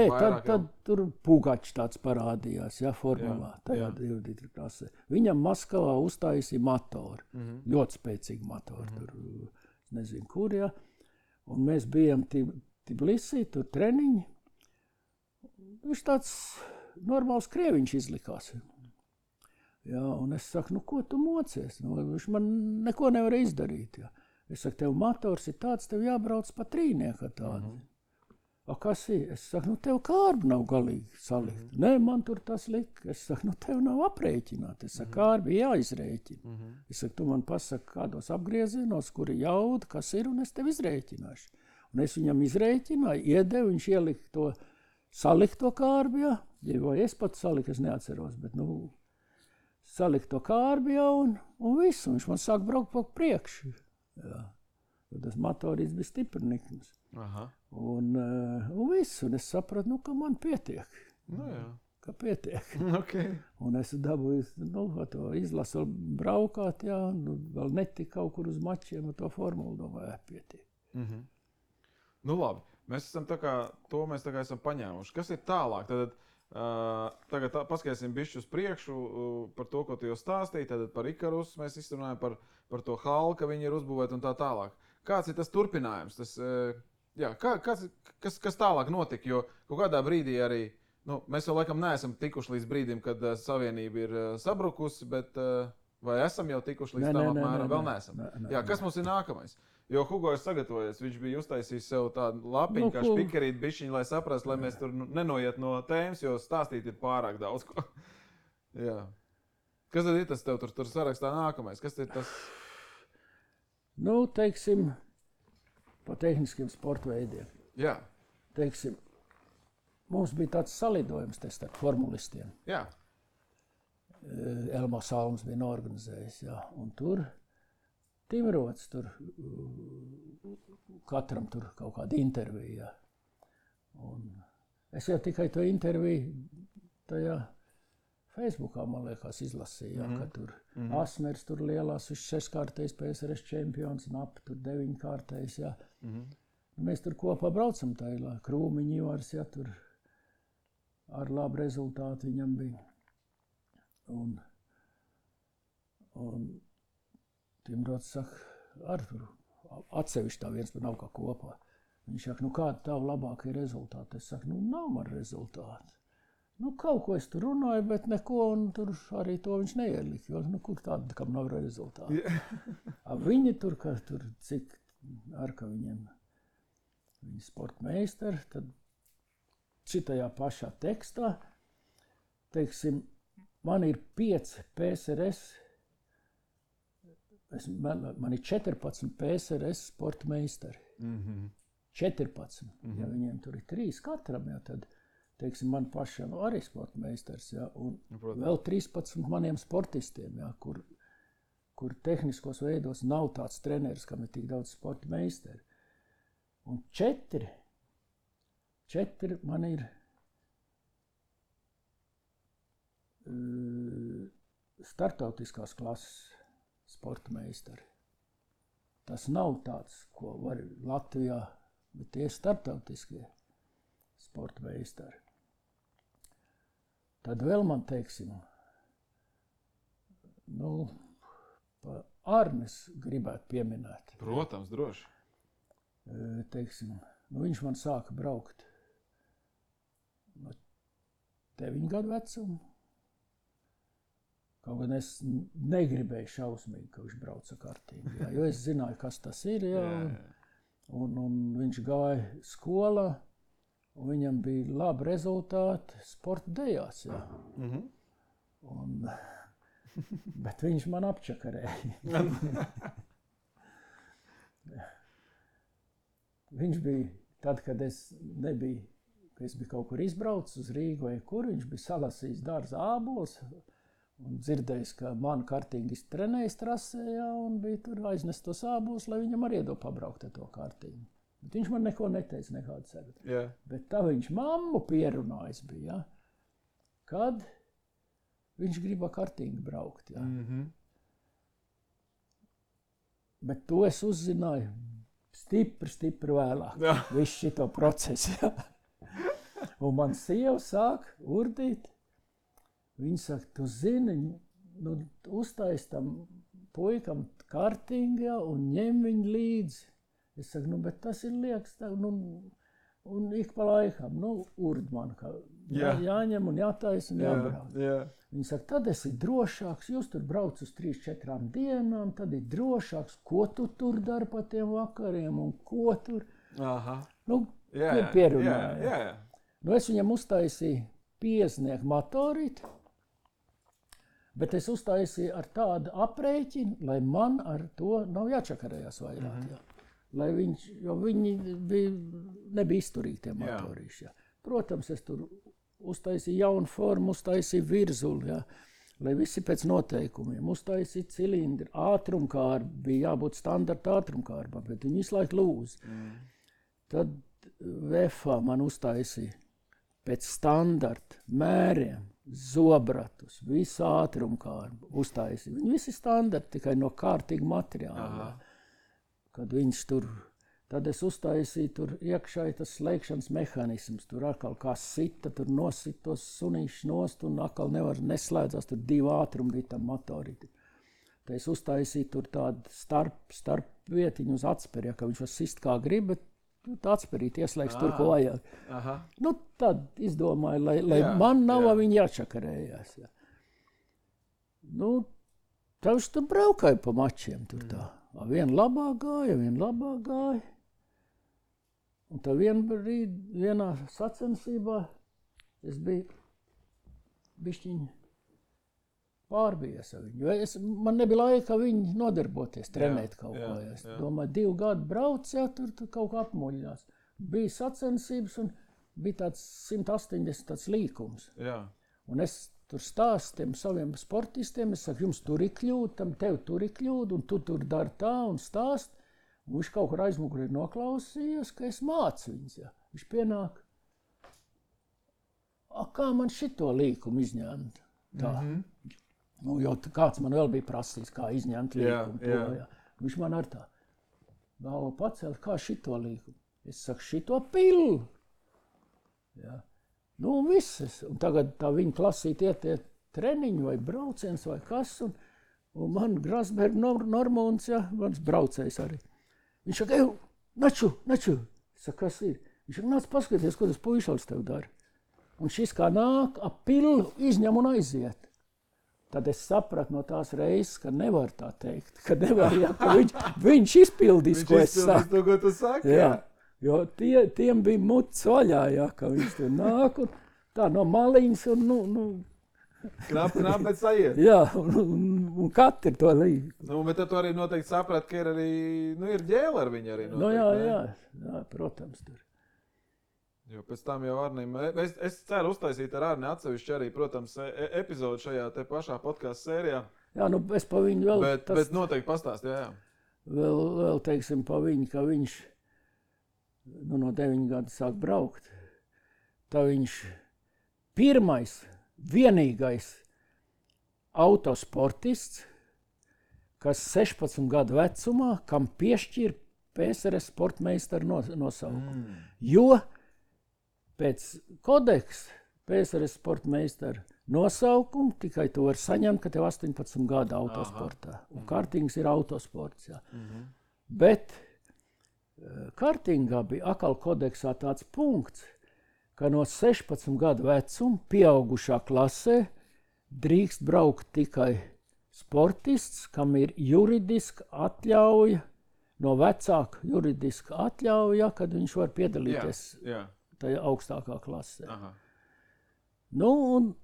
Tad tur Pugačs tāds parādījās, jā, formulā, tajā 2 klasē. Viņam Maskavā uztaisīja motoru, ļoti spēcīgi motoru, tur nezinu kur, jā. Un mēs bijām Tbilisī, tur treniņi. Viņš tāds normāls krieviņš izlikās. Jā, un es saku, nu ko tu mocies? Nu, viņš man neko nevar izdarīt. Jā. Es saku, tev motors ir tāds, tev jābrauc pa trīnieku tādu. A kas ir? Es saku, nu tev kārbi nav galīgi salikt. Nē, man tur tas lika. Es saku, nu tev nav aprēķināt. Es saku, kārbi jāizrēķina. Es saku, tu man pasaki kādos apgriezienos, kuri jauda, kas ir, un es tev izrēķināšu. Un es viņam izrēķināju, iedevu, viņš ielika to salikt to kārbi, jā. Vai es pat saliku, es neatceros, bet nu... Salikt to kārbi jau un visu. Viņš man sāk braukt pa priekšu. Jā. Tas motorīts bija stiprnikums. Un visu. Un es sapratu, nu, ka man pietiek. Nu, jā. Ka pietiek. Okay. Un es dabūju, nu, to izlasu braukāt, jā. Un vēl netika kaut kur uz mačiem, to formulu domāju, pietiek. Nu, labi. Mēs esam tā kā, to mēs tā kā esam paņēmuši. Kas ir tālāk? Tad, Tagad paskatīsim bišķi uz priekšu par to, ko tu jau stāstīji. Tad par Ikarus mēs izrunājam par to halku, ka viņi ir uzbūvēti un tā tālāk. Kāds ir tas turpinājums? Kas tālāk notika? Jo kaut kādā brīdī arī, mēs vēl laikam neesam tikuši līdz brīdim, kad savienība ir sabrukusi, bet vai esam jau tikuši līdz tam apmēram? Vēl neesam. Kas mums ir nākamais? Jo Hugo ir sagatavojies, viņš bija uztaisījis sev tādu lapiņu, kā špikerīt bišķiņu, lai saprastu, lai mēs tur nenoiet no tēmas, jo stāstīt ir pārāk daudz ko. Jā. Kas tad ir tas tev tur sarakstā nākamais? Kas ir tas? Teiksim, pa tehniskiem sporta veidiem. Jā. Teiksim, mums bija tāds salidojums te starp formulistiem. Jā. Elmo Salms bija norganizējis, jā. Un tur Timrots, tur katram tur kaut kāda intervija. Un es jau tikai to interviju tajā Facebookā, man liekas, izlasīju, ka tur Asmers tur lielās, viņš 6-kārtējs PSRS čempions, Nap tur 9-kārtējs, jā. Mēs tur kopā braucam tajā, Krūmiņi Ivars, jā, tur ar labu rezultātu viņam bija. Un Timrots saka, Artur, atsevišķi tā viens nav kā kopā. Viņš saka, kāda tavu labākie rezultāti? Es saku, nav man rezultāti. Kaut ko es tur runāju, bet neko, un tur arī to viņš neielika, jo, kur tāda, kam nav rezultāti. Viņi tur, cik ar ka viņiem, viņi sportmeistari, tad šitajā pašā tekstā, teiksim, man ir 5 PSRS, man ir 14 PSRS sporta meistari. 14. Ja viņiem tur ir 3 katram, ja, tad, teiksim, man pašam arī sporta meistars, ja, un vēl 13 maniem sportistiem, ja, kur tehniskos veidos nav tāds treneris, kam ir tik daudz sporta meistari. Un 4 man ir startautiskās klases sporta meistari. Tas nav tāds, ko var Latvijā, bet tie startautiskie sporta meistari. Tad vēl man, teiksim, Arnis gribētu pieminēt. Protams, droši. Teiksim, viņš man sāka braukt no 9 gadu vecuma. Kaut gan es negribēju šausmīgi, ka viņš brauca kartīgi, jā, jo es zināju, kas tas ir, jā, un viņš gāja skolā, un viņam bija labi rezultāti sporta dejās, jā. Bet viņš man apčakarēja. Viņš bija, tad, kad es biju kaut kur izbraucis uz Rīgu vai kur, viņš bija salasījis dārza ābols, un dzirdējis, ka manu kartingistu trenējis trasē, jā, un bija tur aiznest tos ābolus, lai viņam arī iedod pabraukt ar to kartingu. Bet viņš man neko neteica, nekādu ceru. Yeah. Bet tā viņš mammu pierunājis bija, jā, kad viņš grib ar kartingu braukt, jā. Bet to es uzzināju stipri vēlāk, visu šito procesu, jā. Un man sieva sāk urdīt. Viņa saka, tu zini, uztais tam puikam kartingu, jā, un ņem viņu līdzi. Es saku, bet tas ir liekas, tā, un ik pa laikam, urd man, ka jāņem un jātais un jābrauc. Viņa saka, tad esi drošāks, jūs tur brauc uz 3-4 dienām, tad ir drošāks, ko tu tur dari pa tiem vakariem un ko tur. Pierunāja. Es viņam uztaisīju 50 motorīti, bet es uztaisīju ar tādu aprēķinu, lai man ar to nav jāčakarējās vairāk. Jā. Lai jo viņi nebija izturīgi tie motorīši. Jā. Protams, es tur uztaisīju jaunu formu, uztaisīju virzuli, jā, lai visi pēc noteikumiem. Uztaisīju cilindri, ātrumkārbi, bija jābūt standarta ātrumkārbā, bet viņi visu laiku lūz. Tad VFA man uztaisīja pēc standarta mēriem, zobratus, visu ātrumkārbu uztaisīja. Viņi visi standarti tikai no kārtīga materiāla. Kad viņš tur Tad es uztaisīju tur iekšā tas slēgšanas mehānisms. Tur atkal kā sita, tur nosit tos sunīšus nost un atkal nevar neslēdzās. Tur 2 ātrumi bija tam motorīti. Tad es uztaisīju tur tādu starp vietiņu uz atsperi, ja, ka viņš var sist kā grib, bet tā atspērīt ieslēgs tur, ko vajag. Aha. Nu, tad izdomāju, lai man nav viņi jāčakarējās. Ja. Nu, tavs tu braukāji pa mačiem tur tā. Viena labāk gāja. Un tā vienā sacensībā es biju bišķiņi pārbijies ar viņu. Man nebija laika viņu nodarboties, trenēt kaut ko. Es domāju, 2 gadu brauc, ja, tur kaut kā apmuļļās. Bija sacensības un bija tāds 180 tāds līkums. Jā. Un es tur stāstu tiem saviem sportistiem, es saku, jums tur ir kļūda, tev tur ir kļūda, un tu tur dari tā un stāst. Un viņš kaut kur aizmugurī noklausījās, ka es mācu viņus. Ja. Viņš pienāk, kā man šito līkumu izņemt? Tā. Nu, jo kāds man vēl bija prasījis, kā izņemt līkumu. Jā. Viņš man ar tā galvu pacēla, kā šito līkumu. Es saku, šito pillu. Ja. Nu, visas. Un tagad tā viņa klasīt iet treniņu vai brauciens vai kas. Un man Grasberg Normons, ja, mans braucējs arī. Viņš saka, naču. Es saku, kas ir? Viņš saka, nāc paskaties, ko tas puišals tev dara. Un šis kā nāk, ap pillu izņem un aiziet. Tad es sapratu no tās reizes, ka nevar tā teikt. Ka nevar, ja, ka viņš izpildīs, ko es saku. To, ko tu saki, jā. Jo tiem bija muts vaļā, ja, ka viņš tur nāk un tā no maliņas un Knap, bet sajiet. Jā, un katru to līdzi. Nu, bet tu arī noteikti saprat, ka ir arī, ir ģēle ar viņu arī noteikti. Nu, jā, protams, tur. Jo pēc tam jau Arnim, es ceru uztaisīt ar Arni atsevišķi arī, protams, epizodu šajā te pašā podcastu sērijā. Jā, nu, es pa viņu vēl... Bet noteikti pastāst, jā. Vēl teiksim, pa viņu, ka viņš no 9 gadu sāk braukt. Tā viņš pirmais, vienīgais autosportists, kas 16 gadu vecumā, kam piešķir PSRS sportmeistaru nosaukumu. Jo pēc kodeksa PSRS sportmeistaru nosaukumu tikai to var saņemt, ka tev 18 gadu autosportā. Un kartings ir autosports. Jā. Bet kartingā bija atkal kodeksā tāds punkts, ka no 16 gadu vecuma pieaugušā klasē drīkst braukt tikai sportists, kam ir juridiska atļauja, no vecāka juridiska atļauja, kad viņš var piedalīties tajā augstākā klasē. Aha. Nu, un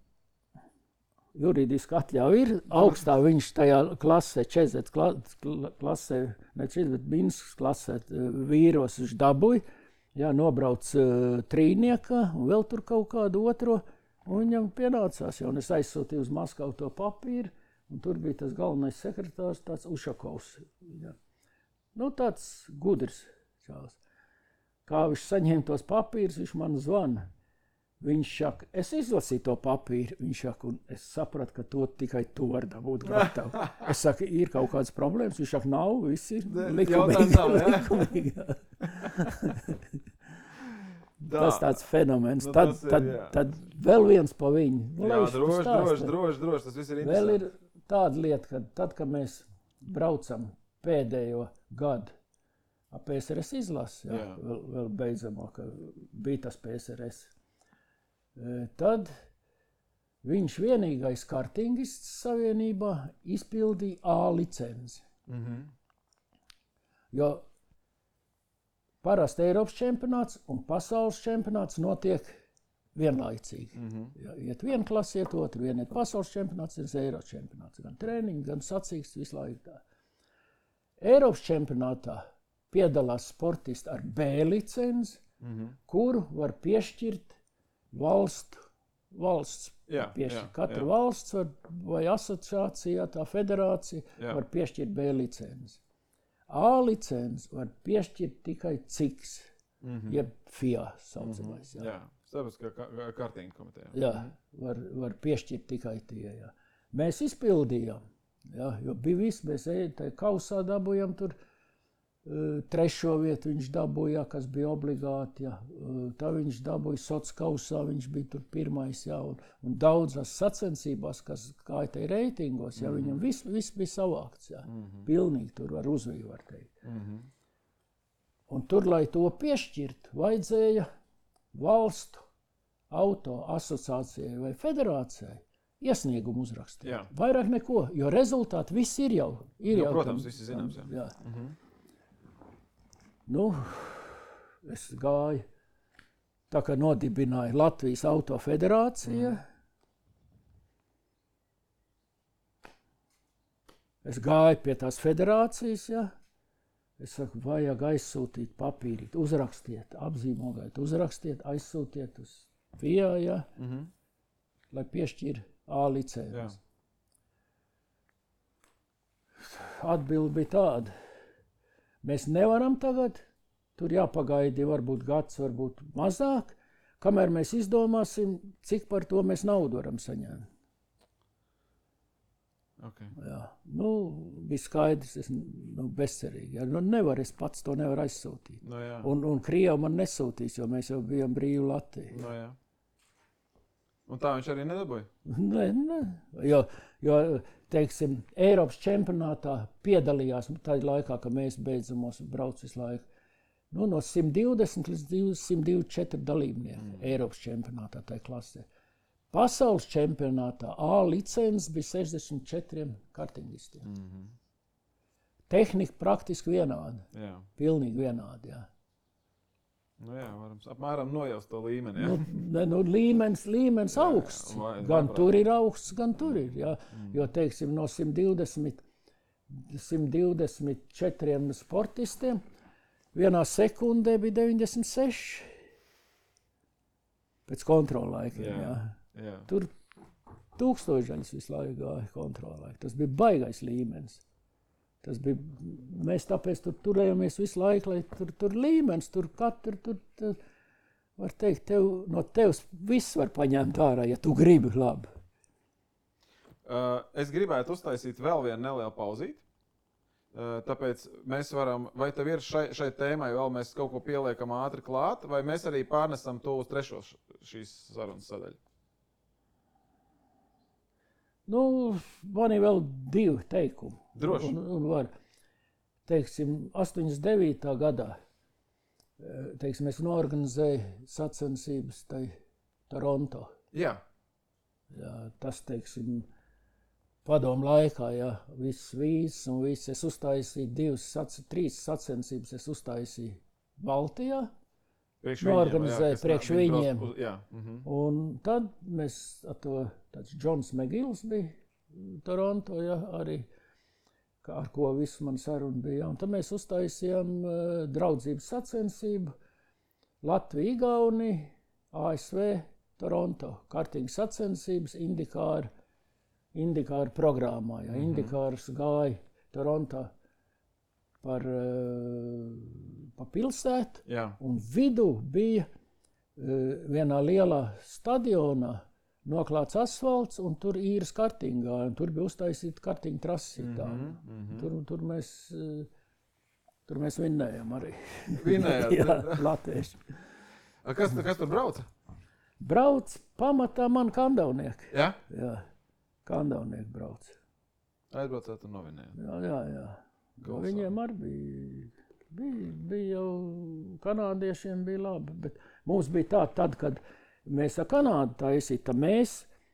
juridiska atļauja ir augstā, viņš tajā klasē, 40 klasē, ne 40, bet Minskas klasē vīros viņš dabūja. Jā, nobrauc trīniekā un vēl tur kaut kādu otro, un viņam pienācās, un es aizsūtīju uz Maskavu to papīru, un tur bija tas galvenais sekretārs, tāds Ušakovs. Jā. Nu, tāds gudrs čāls. Kā viņš saņēma tos papīrus, viņš man zvana. Viņš saka, es izlasīju to papīru, viņš saka, un es sapratu, ka to tikai tu vari dabūt gatavu. Es saku, ir kaut kādas problēmas, viņš saka, nav, viss ir likumīgi. Tas tāds fenomens. Tad vēl viens pa viņu. Jā, droši, tas viss ir interesanti. Vēl ir tāda lieta, ka tad, kad mēs braucam pēdējo gadu ap PSRS izlasi, vēl beidzamā, ka bija tas PSRS, tad viņš vienīgais kartingists savienībā izpildīja A licenci. Jo parasti Eiropas čempionāts un pasaules čempionāts notiek vienlaicīgi. Ja iet viena klase, iet otru, viena iet pasaules čempionāts, ir Eiropas čempionāts. Gan treniņi, gan sacīksts, visu laiku tā. Eiropas čempionātā piedalās sportisti ar B licenci, kuru var piešķirt valsts. Katra valsts vai asociācija, tā federācija var piešķirt B licenci. A licenci var piešķirt tikai CIKS, jeb FIA saucamais. Jā, starptautiskā kartinga komiteja. Jā, var piešķirt tikai tie. Jā. Mēs izpildījām, jo bija viss, mēs kausā dabūjām tur Trešo vietu viņš dabūja, kas bija obligāti. Ja. Tā viņš dabūja sociālajā kausā, viņš bija tur pirmais. Ja, un daudzās sacensībās, kas kā te reitingos, ja, viņam viss bija savākts. Ja. Pilnīgi tur ar uzviju, var teikt. Un tur, lai to piešķirt, vajadzēja valstu auto asociācijai vai federācijai iesniegumu uzrakstīt. Jā. Vairāk neko, jo rezultāti viss ir jau. Protams, viss ir zināms. Jā. Nu, es gāju, tā kā nodibināja Latvijas autofederācija. Es gāju pie tās federācijas, ja. Es saku, vajag aizsūtīt papīrīt, uzrakstiet, apzīmogāt, uzrakstiet, aizsūtiet uz FIA, ja, lai piešķir A licences. Atbilde bija tāda. Mēs nevaram tagad, tur jāpagaidi varbūt gads, varbūt mazāk, kamēr mēs izdomāsim, cik par to mēs naudu varam saņemt. Okay. Jā. Nu, bija skaidrs, bezcerīgi. Ja. Nu, nevar, es pats to nevaru aizsūtīt. No, un Krievi man nesūtīs, jo mēs jau bijām brīvi Latviju. No, jā. Un tā viņš arī nedabūja? Ne. Jo teiksim, Eiropas čempionātā piedalījās tajā laikā, kad mēs beidzamos brauc visu laiku. Nu, no 120 līdz 124 dalībnieki Eiropas čempionātā tajā klasē. Pasaules čempionātā A licences bija 64 kartingistiem. Tehnika praktiski vienāda. Jā. Pilnīgi vienāda, jā. Nu jā, varam apmēram nojaust to līmeni. Jā. Līmenis augsts. Gan tur ir augsts, gan tur ir. Jā. Jo, teiksim, no 124 sportistiem vienā sekundē bija 96. Pēc kontrollaikiem. Jā. Tur tūkstošaļas visu laiku gāja kontrollaiku. Tas bija baigais līmenis. Tas bija, mēs tāpēc turējāmies visu laiku, lai tur līmenis, tur var teikt, no tevs viss var paņemt ārā, ja tu gribi labi. Es gribētu uztaisīt vēl vienu nelielu pauzīti, tāpēc mēs varam, vai tev ir šai tēmai vēl mēs kaut ko pieliekam ātri klāt, vai mēs arī pārnesam to uz trešo šīs sarunas sadaļu? Nu, man ir vēl 2 teikumi. Droši. Un var, teiksim, 89. gadā, teiksim, es norganizēju sacensības tai Toronto. Jā. Jā, tas, teiksim, padomu laikā, jā, viss vīzes un viss. Es uztaisīju 3 sacensības, es uztaisīju Baltijā. Norganizēja priekš viņiem. Un tad mēs ar to, tāds Džons Megils bija Toronto, ja, arī, ar ko visu man saruna bija. Un tad mēs uztaisījām draudzības sacensību Latvija, Igaunija, ASV, Toronto. Kartīgas sacensības Indikāra programmā. Ja. Indikārs gāja Toronto par pilsētu, un vidū bija vienā lielā stadionā noklāts asfalts, un tur īras kartingā, un tur bija uztaisīta kartinga trasi. Tur mēs vinnējām arī. Vinnējāt? Jā, latvieši. Kas tur brauca? Brauc pamatā man kandavnieki. Jā? Jā, kandavnieki brauc. Aizbraucāt un novinējāt? Jā. Viņiem arī bija jau kanādiešiem bija labi, bet mums bija tad, kad mēs ar Kanādu taisīja, tad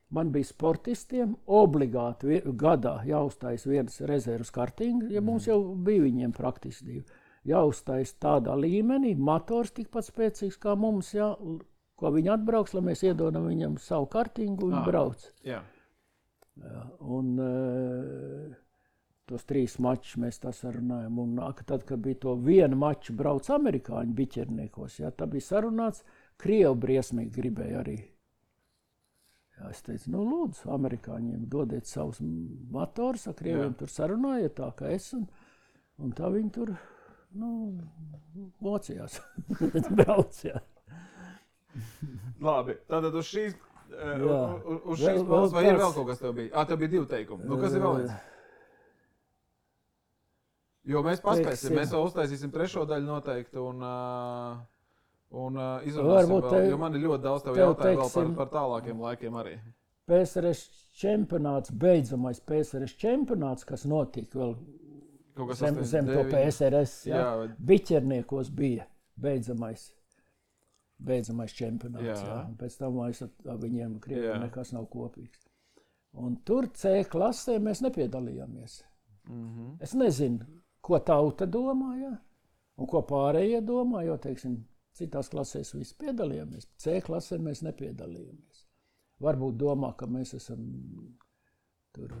man bija sportistiem obligāti gadā jāuztais viens rezervas kartinga, ja mums jau bija viņiem praktiski 2. Jāuztais tādā līmenī, motors tikpat spēcīgs kā mums, jā, ko viņi atbrauks, lai mēs iedodam viņam savu kartingu un brauc. Jā. Un tos 3 mačus mēs tā sarunājam. Un tad, kad bija to vienu maču brauc amerikāņu biķerniekos, jā, tā bija sarunāts, Krievi briesmīgi gribēja arī. Jā, es teicu, nu lūdzu, amerikāņiem dodiet savus motorus, ar Krieviem tur sarunājiet tā, kā es, un tā viņi tur, mocījās. Brauc, jā. Labi, tātad uz šīs puses, vai ir vēl kaut kas tev bija? Tev bija 2 teikumi. Nu, kas ir vēl viens? Jo mēs paspēsim, mēs vēl uztaisīsim 3. daļu noteikti un izrunāsim vēl, jo man ir ļoti daudz tev jautājumu vēl par tālākiem laikiem arī. PSRS čempionāts, beidzamais PSRS čempionāts, kas notika vēl zem to PSRS, Biķerniekos bija beidzamais čempionāts. Jā. Pēc tam viņiem Krievijā nekas nav kopīgs. Un tur C klasē mēs nepiedalījāmies. Es nezinu, ko tauta domā, un ko pārējie domā, jo, teiksim, citās klasēs visi piedalījāmies. C klasē mēs nepiedalījāmies. Varbūt domā, ka mēs esam tur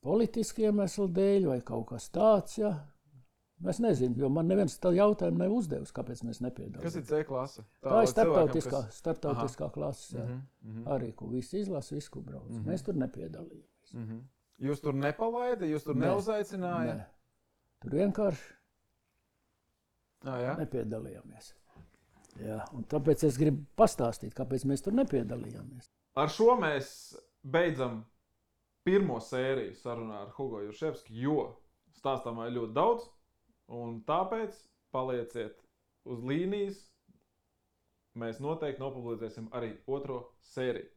politiski iemeslu dēļ vai kaut kas tāds, Es nezinu, jo man neviens tā jautājumu nav uzdevis, kāpēc mēs nepiedalāmies. Kas ir C klase? Tā ir starptautiskā klase, arī, ko visi izlasa, visu, ko brauc. Mēs tur nepiedalījāmies. Jūs tur nepalaida, jūs tur neuzaicināja? Nē. Tur vienkārši nepiedalījāmies. Jā, un tāpēc es gribu pastāstīt, kāpēc mēs tur nepiedalījāmies. Ar šo mēs beidzam pirmo sēriju sarunā ar Hugo Jurševski, jo stāstāmā ir ļoti daudz, un tāpēc palieciet uz līnijas. Mēs noteikti nopublicēsim arī 2. sēriju.